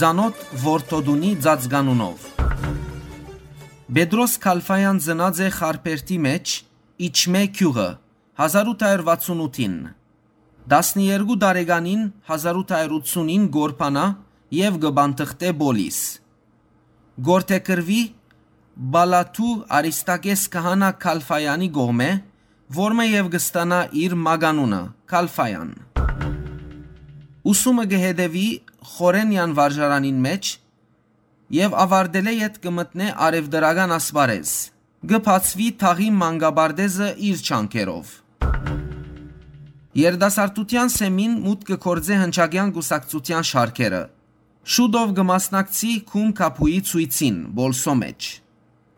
Ծանօթ Որդոդունի ծածկանունով։ Պետրոս Քալֆաեան ծնած է Խարբերդի մէջ, Իջմէ գիւղը, հազար ութ հարյուր վաթսուն ութին։ Տասներկու տարեկանին, հազար ութ հարյուր ութսունին կորփանայ եւ կը պանթղթէ Պոլիս։ Կ'որդեգրուի Պալաթու արիստակէս քահանայ Քալֆաեանի կողմէ, որմէ եւ կը ստանայ իր մականունը՝ Քալֆաեան։ Ուսումը կը հետեւի Խորենեան վարժարանին մէջ եւ աւարտելէ յետ կը մտնէ առեւտրական ասպարէզ։ Կը բացուի թաղի մանկապարտէզը իր ջանքերով։ Երիտասարդութեան սեմին մուտք կը գործէ հնչակեան կուսակցութեան շարքերը։ Շուտով կը մասնակցի Գում Քաբուի ցոյցին Պոլսոյ մէջ։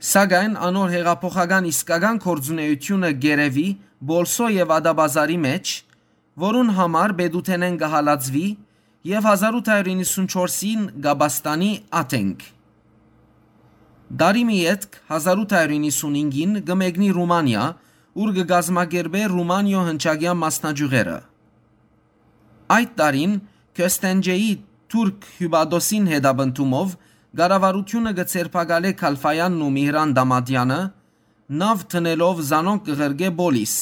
Սակայն անոր յեղափոխական իսկական գործունէութիւնը կ'երեւի Պոլսոյ եւ Ատաբազարի մէջ, որուն համար պետութենէն կը հալածուի եւ հազար ութ հարիւր իննսունչորսին կ'ապաստանի Աթենք։ Տարի մը ետք, հազար ութ հարիւր իննսունհինգին կը մեկնի Ռումանիա, ուր կը կազմակերպէ Ռումանիոյ հնչակեան մասնաճիւղերը։ Այդ տարին Քյոստենջեի թուրք հիւպատոսին հետապնդումով կառավարութիւնը կը ձերբակալէ Քալֆաեանն ու Միհրան Դամատեանը, նաւ դնելով զանոնք կը ղրկէ Պոլիս։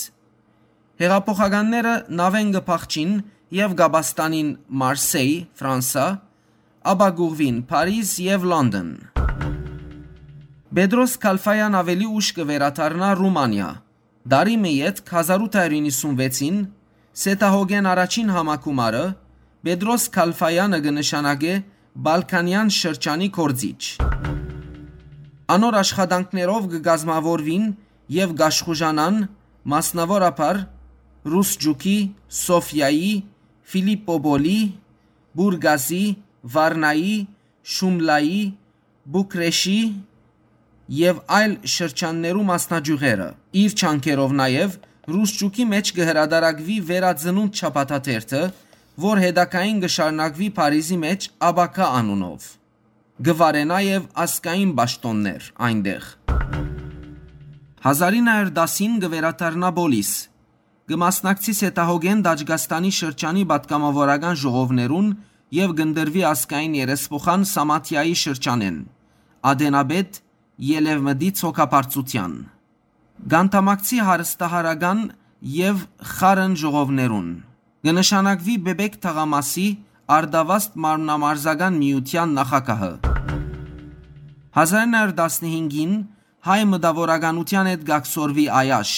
Յեղափոխականները նաւէն կը փախչին եւ կ'ապաստանին Մարսեյ, Ֆրանսա, ապա կ'ուղղուին Փարիզ եւ Լոնդոն։ Պետրոս Քալֆաեան աւելի ուշ կը վերադառնայ Ռումանիա։ Տարի մը ետք, հազար ութ հարիւր իննսունվեցին, Սեդահոգէն առաջին համագումարը Պետրոս Քալֆաեանը կը նշանակէ Պալքանեան շրջանի գործիչ։ Անոր աշխատանքներով կը կազմաւորուին եւ կ'աշխուժանան, մասնաւորաբար, Ռուսճուկի, Սոֆիայի, Ֆիլիպպոպոլի, Պուրգազի, Վարնայի, Շումլայի, Պուկրեշի եւ այլ շրջաններու մասնաճիւղերը։ Իր ջանքերով նաեւ Ռուսճուկի մէջ կը հրատարակուի Վերածնունդ շաբաթաթերթը, որ հետագային կը շարունակուի Փարիզի մէջ Ապագայ անունով։ Կը վարէ նաեւ ազգային պաշտօններ այնտեղ։ Հազար ինը հարիւր տասին կը վերադառնայ Պոլիս, կը մասնակցի Սեդահոգէն Տաճկաստանի շրջանի պատգամաւորական ժողովներուն եւ կ'ընտրուի ազգային երեսփոխան Սամաթիայի շրջանէն, ատենապետ Ելեւմտի ցոքաբարձութեան։ Կ'անդամակցի հարստահարական եւ խառն ժողովներուն։ Կը նշանակուի Պէպէք թաղամասի Արտավազդ մարմնամարզական միութեան նախագահը։ Հազար ինը հարիւր տասնհինգին հայ մտաւորականութեան հետ կ'ակցորուի Այաշ,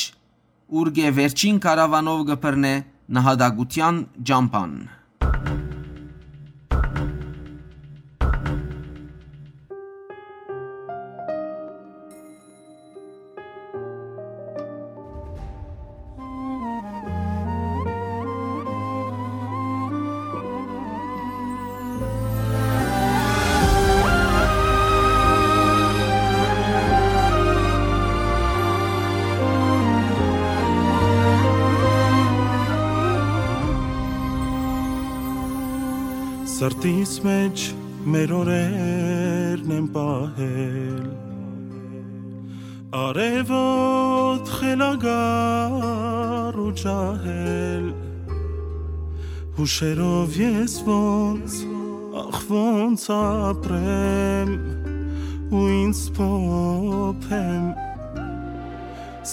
ուրկէ վերջին կարաւանով կը բռնէ նահատակութեան ճամբան։ Սրտիս մէջ մեր օրերն են պահել, արեւոտ խելագար ու ջահել, հուշերով ես ոնց, ախ, ոնց ապրեմ ու ինձ փոփեմ։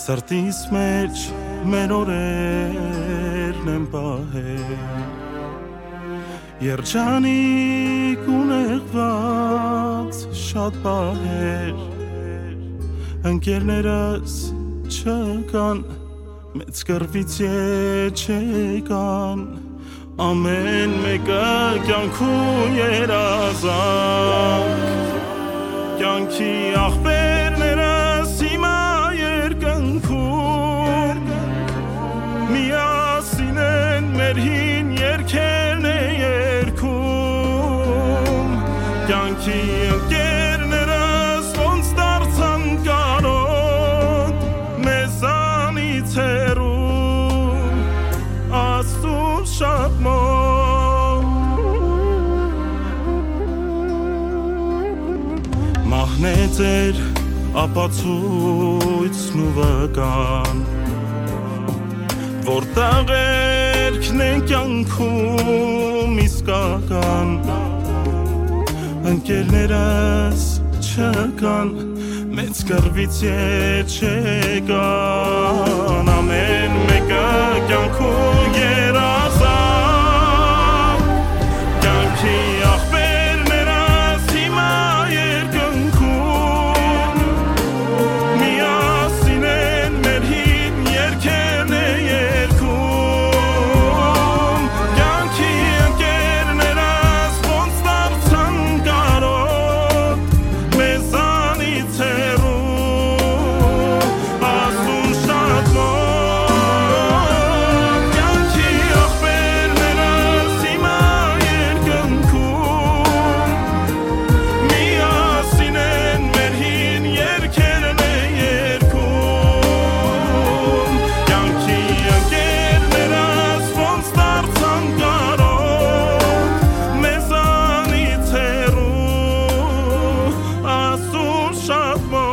Սրտիս մէջ մեր օրերն են պահել, երջանիկ ու նեղված շատ պահեր, ընկերներս չկան, մեծ կռվից ետ չեկան, ամէն մէկը կեանքու երազանք, կեանքի աղբերներս հիմա երկնքում, միասին են մեր հին երգերն է երգում, կեանքի ընկերներս ոնց դարձան կարոտ, մեզանից հեռու, Աստուծուն շատ մոտ։ Մահն է ձեր ապացոյցն ու վկան, Որտեղ երկն է կյանքում իսկական, ընկերներս չկան, մեծ կռվից ետ չեկան, ամեն մեկը կյանքու երազան, կյանքի աղբերներս հիմա երկնքում, միասին են մեր հին երկերն է երգում, կյանքի ընկերներս ոնց դարձան կարոտ, մեզանից հեռու, ասուն շատ մոտ, կյանքի աղբերներս հիմա երկնքում, միասին են մեր հին երկերն է երգում, կյանքի ընկերներս ոնց դարձան կարոտ, մեզանից հեռու, ասուն շատ մոտ։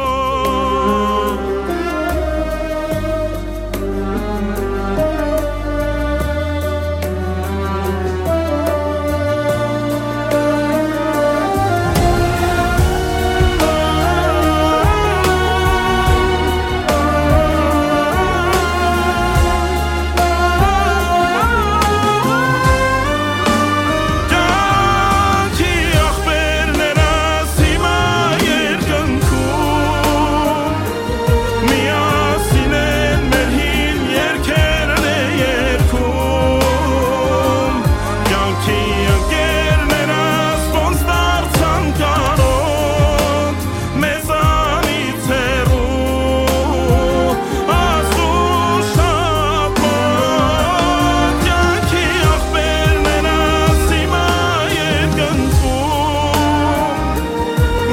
Կյանքի աղբերներս հիմա երկնքում, միասին են մեր հին երկերն է երգում, կյանքի ընկերներս ոնց դարձան կարոտ, մեզանից հեռու, ասու շատ մոտ, կյանքի աղբերներս հիմա երկնքում,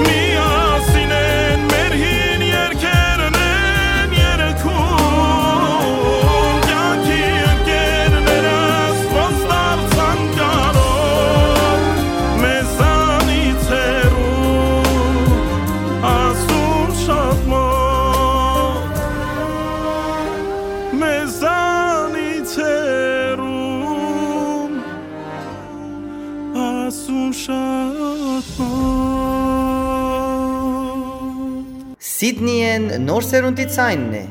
միասին են մեր հին երկերն են երգում, կյանքի ընկերներս ոնց դարձան կարոտ, մեզանից հեռու, ասուն շատ մոտ, մեզանից հեռու, ասուն շատ մոտ։ Սիդնիէն Նոր Սերունդի Ձայնն է։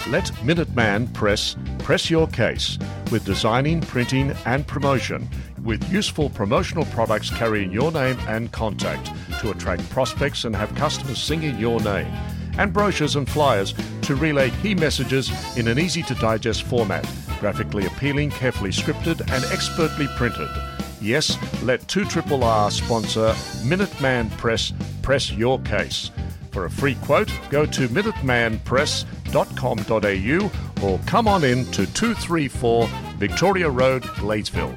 Let Minuteman Press press your case with designing, printing, and promotion, with useful promotional products carrying your name and contact to attract prospects and have customers singing your name, and brochures and flyers to relay key messages in an easy to digest format, graphically appealing, carefully scripted, and expertly printed. Yes, let two triple R sponsor Minuteman Press press your case. For a free quote, go to minuteman press dot com dot a u or come on in to two three four Victoria Road, Gladesville.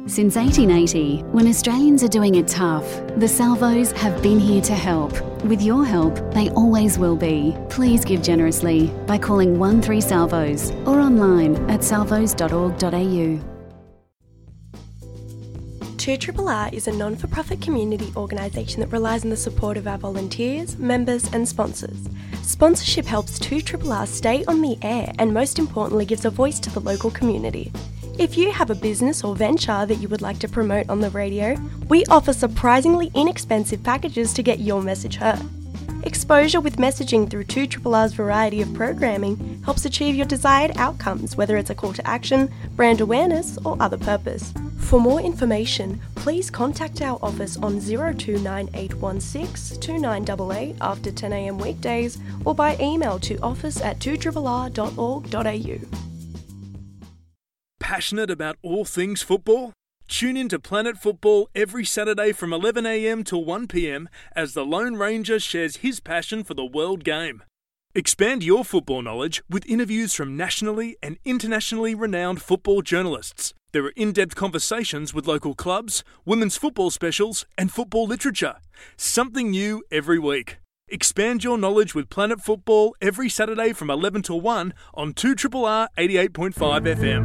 Since eighteen eighty, when Australians are doing it tough, the Salvos have been here to help. With your help, they always will be. Please give generously by calling one three Salvos or online at salvos dot org dot a u. Two R R R is a non for profit community organisation that relies on the support of our volunteers, members, and sponsors. Sponsorship helps two R R R stay on the air and, most importantly, gives a voice to the local community. If you have a business or venture that you would like to promote on the radio, we offer surprisingly inexpensive packages to get your message heard. Exposure with messaging through two R R R's variety of programming helps achieve your desired outcomes, whether it's a call to action, brand awareness, or other purpose. For more information, please contact our office on zero two nine eight one six two nine eight eight after ten a m weekdays or by email to office at two R R R dot org dot a u. Passionate about all things football? Tune in to Planet Football every Saturday from eleven a m to one p m as the Lone Ranger shares his passion for the world game. Expand your football knowledge with interviews from nationally and internationally renowned football journalists. There are in-depth conversations with local clubs, women's football specials, and football literature. Something new every week. Expand your knowledge with Planet Football every Saturday from eleven to one on two R R R eighty-eight point five F M.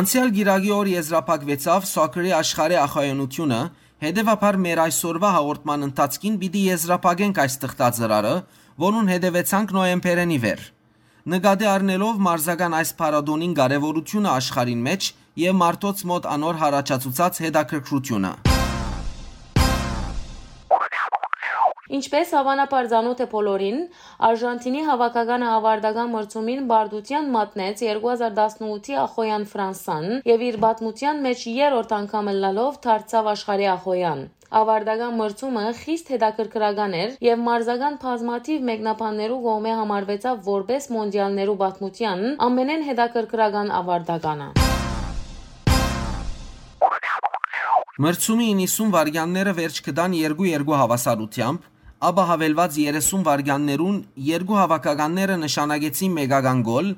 Անցեալ կիրակի օր եզրափակուեցաւ Սոքերի աշխարհի ախոյանութիւնը, հետեւաբար մեր այսօրուայ հաղորդման ընթացքին պիտի եզրափակենք այս թղթածրարը, որուն հետեւեցանք նոյեմբերէն ի վեր։ Նկատի առնելով մարզական այս փառատոնին կարեւորութիւնը աշխարհին մէջ եւ մարդոց մօտ անոր յառաջացուցած հետաքրքրութիւնը։ Ինչպէս հաւանաբար ծանօթ է բոլորին, Արժանթինի հաւաքականը աւարտական մրցումին պարտութեան մատնեց երկու հազար տասնութի ախոյեան Ֆրանսան եւ իր պատմութեան մէջ երրորդ անգամ ըլլալով դարձաւ աշխարհի ախոյեան։ Աւարտական մրցումը խիստ հետաքրքրական էր եւ մարզական բազմաթիւ մեկնաբաններու կողմէ համարուեցաւ որպէս մոնտիալներու պատմութեան ամենէն հետաքրքրական աւարտականը։ Մրցումի իննսուն վայրկեանները վերջ կտան երկու երկու հաւասարութեամբ, ապա հավելուած երեսուն վայրկեաններուն երկու հաւաքականները նշանակեցին մեկական գոլ,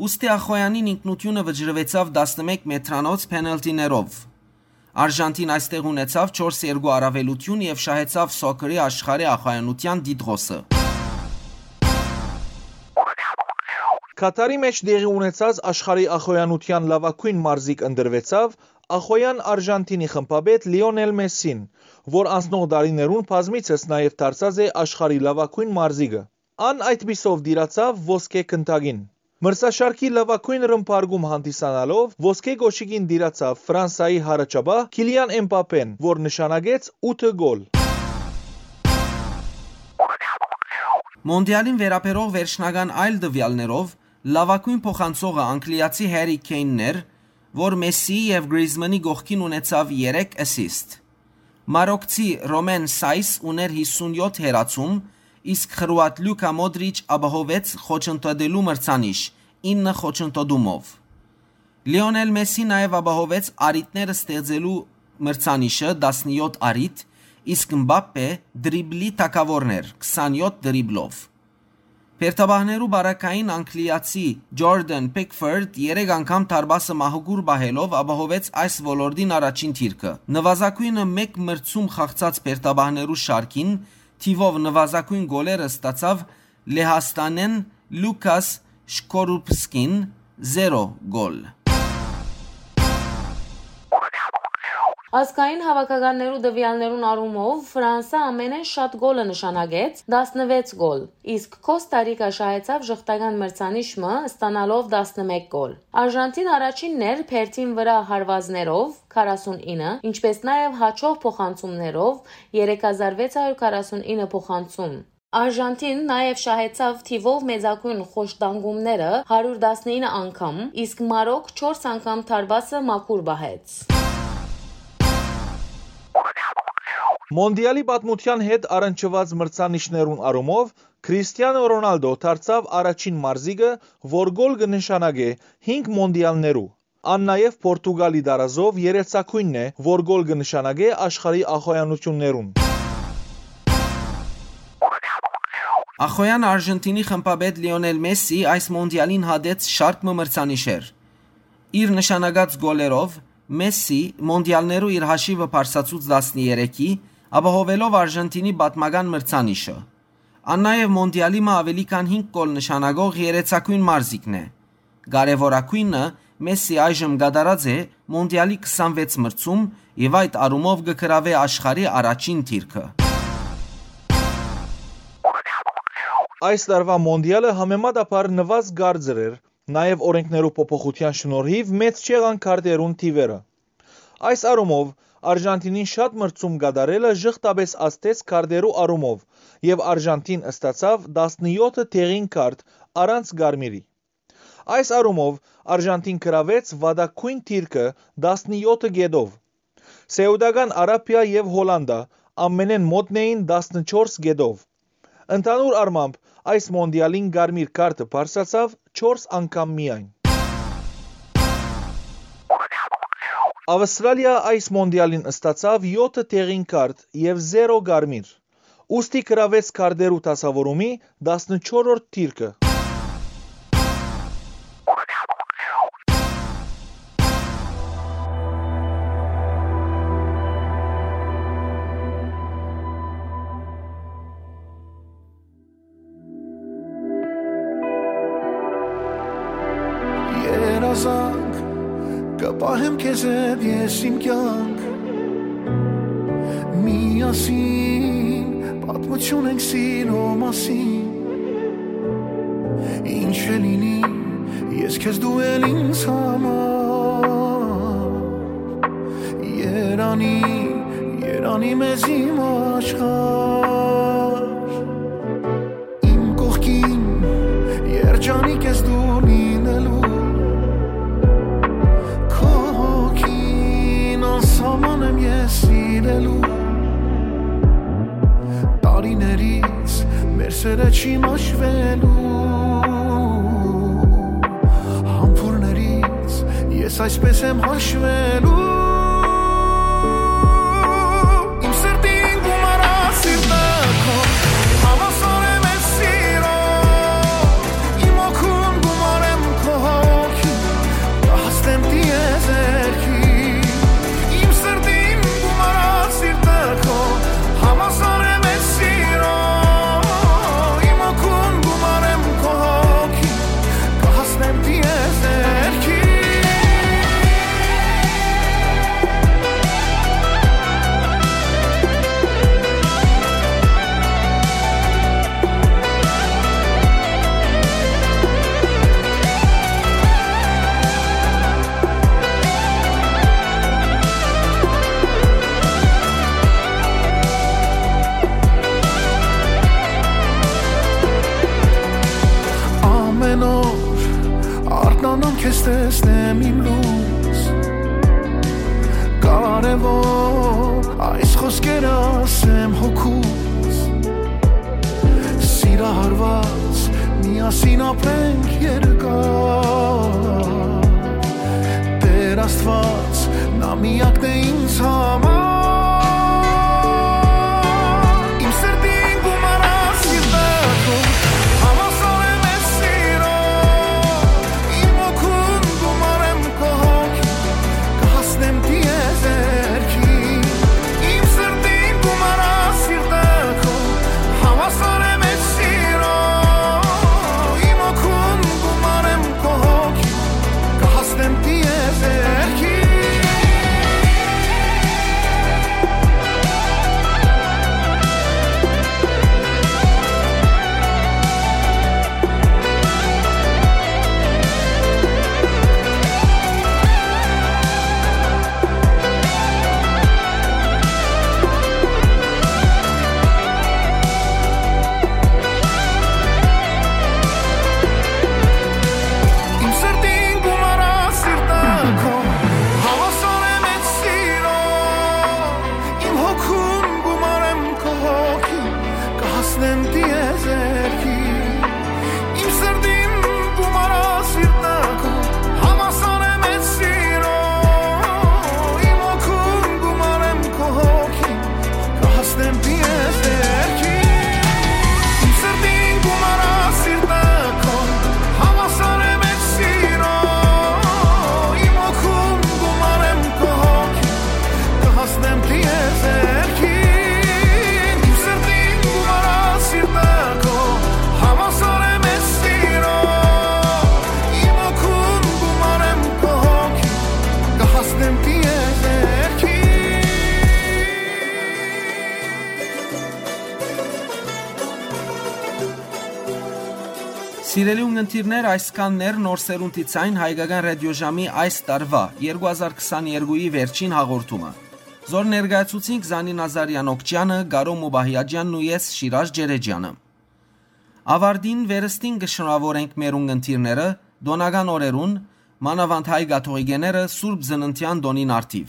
ուստի Ախոյանին ինքնութիւնը վճռուեցաւ տասնմէկ մետրանոց փենալթիներով։ Արժանթին այստեղ ունեցաւ չորս երկու առաւելութիւն եւ շահեցաւ սոքերի աշխարհի ախոյանութեան տիտղոսը։ Քաթարի մէջ տեղի ունեցած աշխարհի ախոյանութեան լաւագոյն մարզիկ ընտրուեցաւ ախոյան Արժանթինի խմբապետ Լիոնել Մեսսին, որ անցնող տարիներուն բազմիցս նաեւ դարձած է աշխարհի լաւագոյն մարզիկը։ Ան այդպիսով տիրացաւ ոսկէ գնդակին։ Մրցաշարքի լաւագոյն ռմբարկում հանդիսանալով ոսկէ կոշիկին տիրացաւ Ֆրանսայի յառաջապահ Քիլիան Էմպապեն, որ նշանակեց ութը գոլ։ Մոնտիալին վերաբերող վերջնական այլ տվեալներով լաւագոյն փոխանցողը անգլիացի Հերի Քեյնն էր, որ Մեսսիի եւ Գրիզմանի կողքին ունեցաւ երեք assist։ Մարոկցի Ռոմեն Սայս ուներ հիսունյոթ հեռացում, իսկ խրուատ Լուկա Մոդրիչ ապահովեց խոչընդոտելու մրցանիշ ինը խոչընդոտումով։ Լիոնել Մեսսի նաեւ ապահովեց առիթներ ստեղծելու մրցանիշը, տասնյոթ առիթ, իսկ Մբապպե դրիբլի թագաւորն էր, քսանյոթ դրիբլով։ Բերդապահներու բարակային անգլիացի Ջորդան Փիքֆորդ երեք անգամ դարպասը մահուկուր պահելով ապահովեց այս ոլորտին առաջին դիրքը։ Նվազագոյնը մէկ մրցում խաղցած բերդապահներու շարքին թիւով նվազագոյն գոլերը ստացաւ Լեհաստանէն Լուկաս Շքորուպսկին, զերո գոլ։ Ազգային հաւաքականներու տվեալներուն առումով Ֆրանսա ամենէն շատ գոլը նշանակեց, տասնվեց գոլ, իսկ Կոստա Ռիկա շահեցաւ ժխտական մրցանիշ մը, ստանալով տասնմէկ գոլ։ Արժանթին առաջինն էր բերդին վրայ հարուածներով, քառասունինը, ինչպէս նաեւ հաճող փոխանցումներով, երեք հազար վեց հարյուր քառասունինը փոխանցում։ Արժանթին նաեւ շահեցաւ թիւով մեծագոյն խոշտանգումները, հարիւր տասնինը անգամ, իսկ Մարոկ չորս անգամ դարպասը մաքուր պահեց։ Մոնտիալի պատմութեան հետ առնչուած մրցանիշներուն առումով Քրիստիանո Ռոնալդո դարձաւ առաջին մարզիկը, որ գոլ կը նշանակէ հինգ մոնտիալներու։ Ան նաեւ Պորտուգալի տարազով երեցակոյնն է, որ գոլ կը նշանակէ աշխարհի ախոյանութիւններուն։ Ախոյան Արժանթինի խմբապետ Լիոնել Մեսսի այս մոնտիալին հատեց շարք մը մրցանիշեր։ Իր նշանակած գոլերով Մեսսի մոնտիալներու իր հաշիվը բարձրացուց տասներեքի, ապահովելով Արժանթինի պատմական մրցանիշը։ Ան նաեւ մոնտիալի մը աւելի քան հինգ գոլ նշանակող երեցակոյն մարզիկն է։ Կարեւորագոյնը, Մեսսի այժմ կատարած է մոնտիալի քսանվեց մրցում եւ այդ առումով կը գրաւէ աշխարհի առաջին դիրքը։ Այս տարուայ մոնտիալը համեմատաբար նուազ կարծր էր, նաեւ օրենքներու փոփոխութեան շնորհիվ մեծ չեղան քարտերուն թիվերը։ Այս առումով Արժանթինին շատ մրցում կատարելը ժխտապէս ազդեց քարտերու առումով եւ Արժանթին ստացաւ տասնյոթ տեղին քարտ առանց կարմիրի։ Այս առումով Արժանթին գրաւեց վատագոյն դիրքը տասնյոթ կետով։ Սեուտական Արաբիա եւ Հոլանդա ամենէն մոտն էին տասնչորս կետով։ Ընդհանուր առմամբ այս մոնտիալին կարմիր քարտը բարձրացաւ չորս անգամ միայն։ Ավստրալիա այս մոնտիալին ստացաւ յոթ տեղին քարտ եւ զերո կարմիր, ուստի գրաւեց քարտերու դասաւորումի տասնչորրորդ դիրքը։ Երազանք, կը պահեմ քեզ հետ ես իմ կյանք, միասին պատմություն ենք սիրո մասին, ինչ Կ'ելինի, ես քեզ դու էլ ինձ համար։ Երանի, երանի մեզ իմ աշխարհ։ Իմ կողքին, երջանիկ ես դու լինելու, քո հոգին անսահման եմ ես սիրելու։ Տարիներիս մեր սերը չի մաշվելու, համբուրներիս ես այսպես եմ հաշվելու։ Իմ սրտին գումարա սիրտը քո, հավասար եմ ես սիրո, իմ հոգուն գումարեմ քո հոգին, կհասնեմ տիեզերքի։ Իմ սրտին գումարա սիրտը քո, հավասար եմ ես սիրո, իմ հոգուն գումարեմ քո հոգին, կհասնեմ տիեզերքի։ Ամեն օր արթնանամ քեզ տեսնեմ իմ լույս, կարևոր այս խոսքերը ասեմ հոգուս։ Սիրահարված միասին ապրենք երկար, Տեր Աստված, նա միակն է ինձ համար։ Իմ սրտին գումարա սիրտը քո, հավասար եմ ես սիրո, իմ հոգուն գումարեմ քո հոգի, կհասնեմ տիեզերքի։ Իմ սրտին գումարա սիրտը քո, հավասար եմ ես սիրո, իմ հոգուն գումարեմ քո հոգի, կհասնեմ տիեզերքի։ Իմ սրտին գումարա սիրտը քո, հավասար եմ ես սիրո, իմ հոգուն գումարեմ քո հոգի, կհասնեմ տիեզերքի։ Իմ սրտին գումարա սիրտը քո, հավասար եմ ես սիրո, իմ հոգուն գումարեմ քո հոգի, կհասնեմ տիեզերքի։ Իմ սրտին գումարա սիրտը քո, հավասար եմ ես սիրո, իմ հոգուն գումարեմ քո հոգի, կհասնեմ տիեզերքին։ Իմ սրտին գումարա սիրտը քո, հավասար եմ ես սիրո, իմ հոգուն գումարեմ քո հոգի, կհասնեմ տիեզերքին։ Սիրելի ունգընտիրներ, այսքանն էր Նոր Սերունդի Ցայն հայկական ռադիոժամի այս տարուայ, երկու հազար քսաներկուի վերջին հաղորդումը։ Զոր ներկայացուցինք Զանի Նազարեան Օքճեանը, Կարո Մուբահիաջեանն ու ես, Շիրաժ Ջերեջեանը։ Աւարտին, վերստին կը շնորհաւորենք մեր ունգընտիրները տօնական օրերուն, մանաւանդ հայ կաթողիկեները Սուրբ Ծննդեան տօնին առթիւ։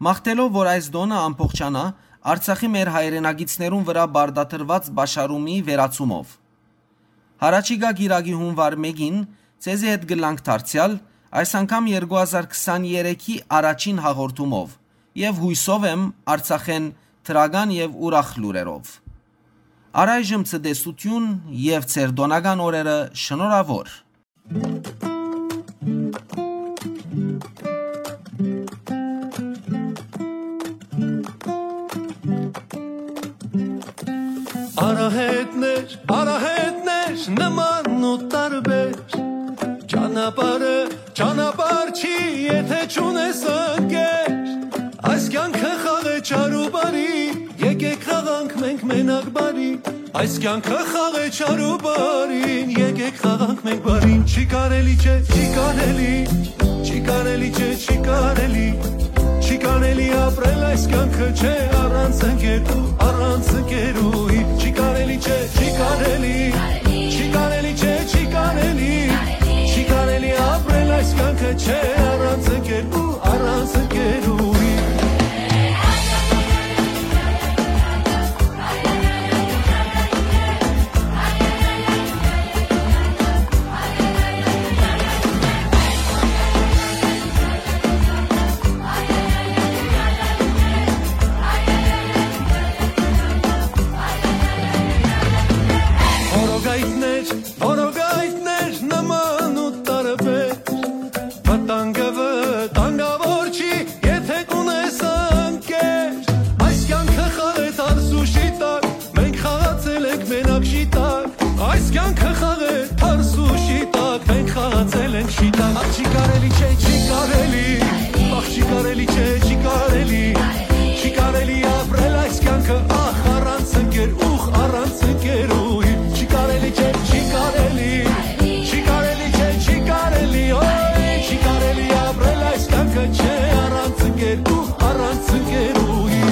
Մաղթելով, որ այս տօնը ամբողջանայ, Արցախի մեր հայրենակիցներուն վրայ պարտադրուած պաշարումի վերացումով։ Յառաջիկայ կիրակի, հունուար մէկին, ձեզի հետ կ'ըլլանք դարձեալ, այս անգամ երկու հազար քսաներեքի առաջին հաղորդումով եւ, յուսով եմ, Արցախէն դրական եւ ուրախ լուրերով։ Առայժմ ցտեսութիւն եւ ձեր տօնական օրերը շնորհաւոր։ Արահետներ, արահետներ, նման ու տարբեր, ճանապարհը ճանապարհ չի, եթե չունես ընկեր։ Այս կյանքը խաղ է չար ու բարի, եկեք խաղանք մենք մենակ բարի, Այս կյանքը խաղ է չար ու բարին, եկեք խաղանք մենք բարին, չի կարելի, չէ, չի կարելի, չի կարելի, չէ, չի կարելի, չի կարելի ապրել այս կյանքը, չէ, առանց ընկերու, առանց ընկերուհի, չի կարելի, չէ, չի կարելի, չի կարելի, չէ, չի կարելի, չի կարելի ապրել այս կյանքը, չէ, առանց ընկերու, առանց ընկերուհի։ Որոգայթներ, որոգայթներ նման ու տարբեր, վտանգը վտանգավոր չի, եթե կունես ընկեր։ Այս կյանքը խաղ է թարս ու շիտակ, մենք խաղացել ենք մենակ շիտակ։ Այս կյանքը խաղ է թարս ու շիտակ, մենք խաղացել ենք շիտակ։ Ախ, չի կարելի, չէ, չի կարելի, ախ, չի կարելի, չէ, չի կարելի, չի կարելի ապրել այս կյանքը, ախ, առանց ընկեր, ուխ, առանց ընկերուհի, չի կարելի, չէ, չի կարելի, չի կարելի, չէ, չի կարելի, օյ, չի կարելի ապրել այս կյանքը, չէ, առանց ընկեր, ուխ, առանց ընկերուհի։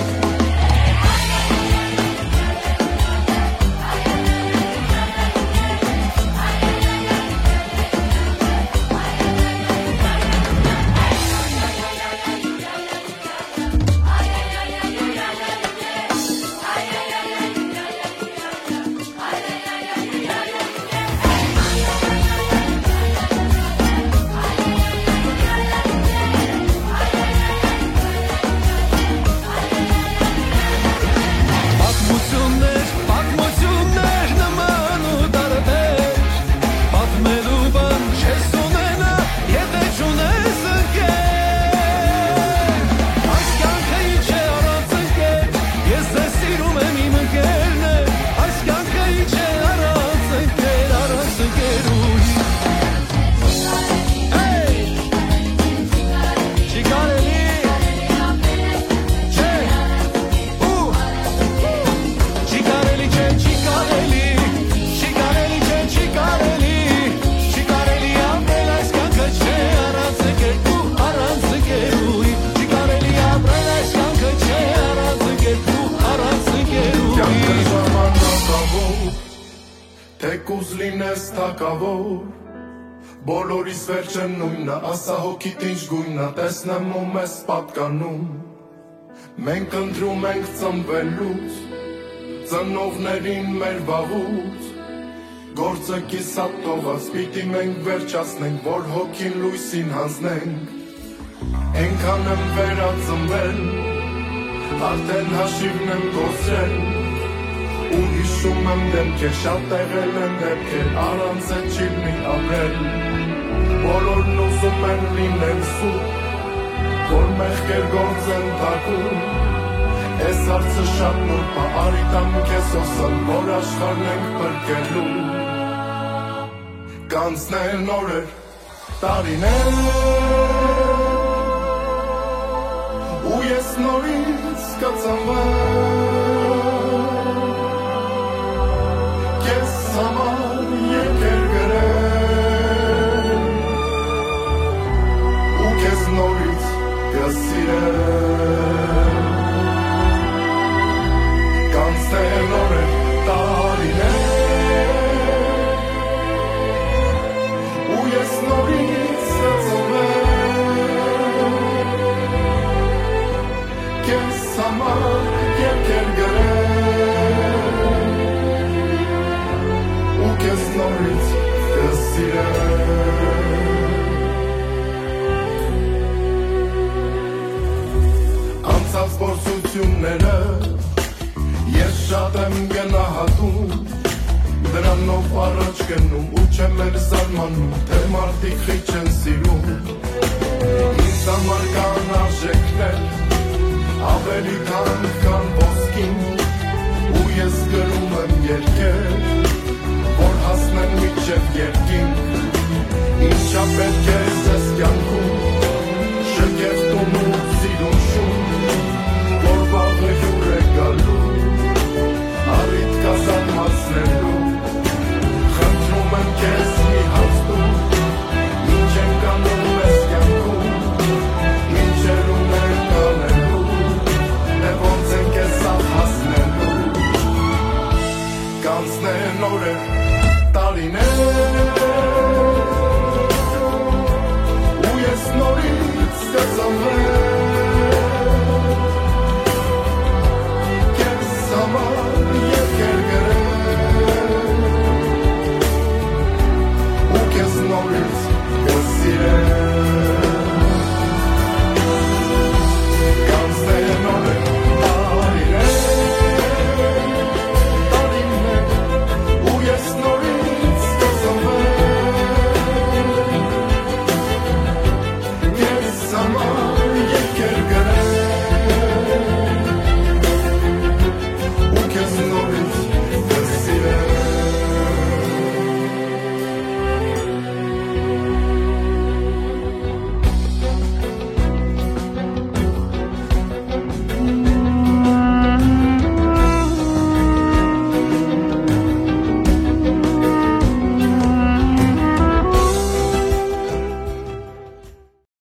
Պատմություններ, պատմություններ նման ու տարբեր, պատմելու բան չես ունենա, եթե չունես ընկեր։ Այս կյանքը ինչ է առանց ընկեր, ես ձեզ սիրում եմ, իմ ընկերներ, այս կյանքը ինչ է առանց ընկեր, առանց ընկերուհի։ Hey! Չի կարելի, չէ, ու, չի կարելի, չէ, չի կարելի, չի կարելի, չէ, չի կարելի, չի կարելի ապրել այս կյանքը, չէ, առանց ընկերու, առանց ընկերուհի, չի կարելի ապրել այս կյանքը, չէ, առանց ընկերու, առանց ընկերուհի։ Կյանքը ժամանակաւոր, թեկուզ լինես թագաւոր, բոլորիս վերջը նոյնն է, ասա հոգիդ ինչ գոյնն է, տեսնեմ ու մեզ պատկանում։ Մենք ընտրում ենք ծնվելուց, ծնողներին մեր վաղուց, գործը կիսատ թողած, պիտի մենք վերջացնենք, որ հոգին լոյսին յանձնենք։ Այնքան եմ վերածնվել, արդեն հաշիվն եմ կորցրել, ու հիշում եմ դեմքեր, շատ եղել են դեպքեր, առանց այդ չի լինի ապրել, բոլորն ուզում են լինեն սուտ, որ մեղքեր գործեն թաքուն։ Այս հարցը շատ նուրբ է, արի տամ քեզ հոսան, որ աշխարհն ենք փրկելու։ Կանցնեն օրեր, տարիներ, ու ես նորից կծնվեմ, քեզ համար երկեր գրեմ, ու քեզ նորից կսիրեմ։ Կանցնեն օրեր, տարիներ, ու ես նորից կծնվեմ, քեզ համար երկեր գրեմ, ու քեզ նորից կսիրեմ։ Անցած փորձությունները ես շատ եմ գնահատում, դրանով առաջ գնում ու չեմ էլ զարմանում, թե մարդիկ խիչ են սիրում։ Ինձ համար կան արժեքներ, ավելի թանկ քան ոսկին, ու ես գրում եմ երկեր, որ հասնեն մինչև երկինք։ Ինչա պետք է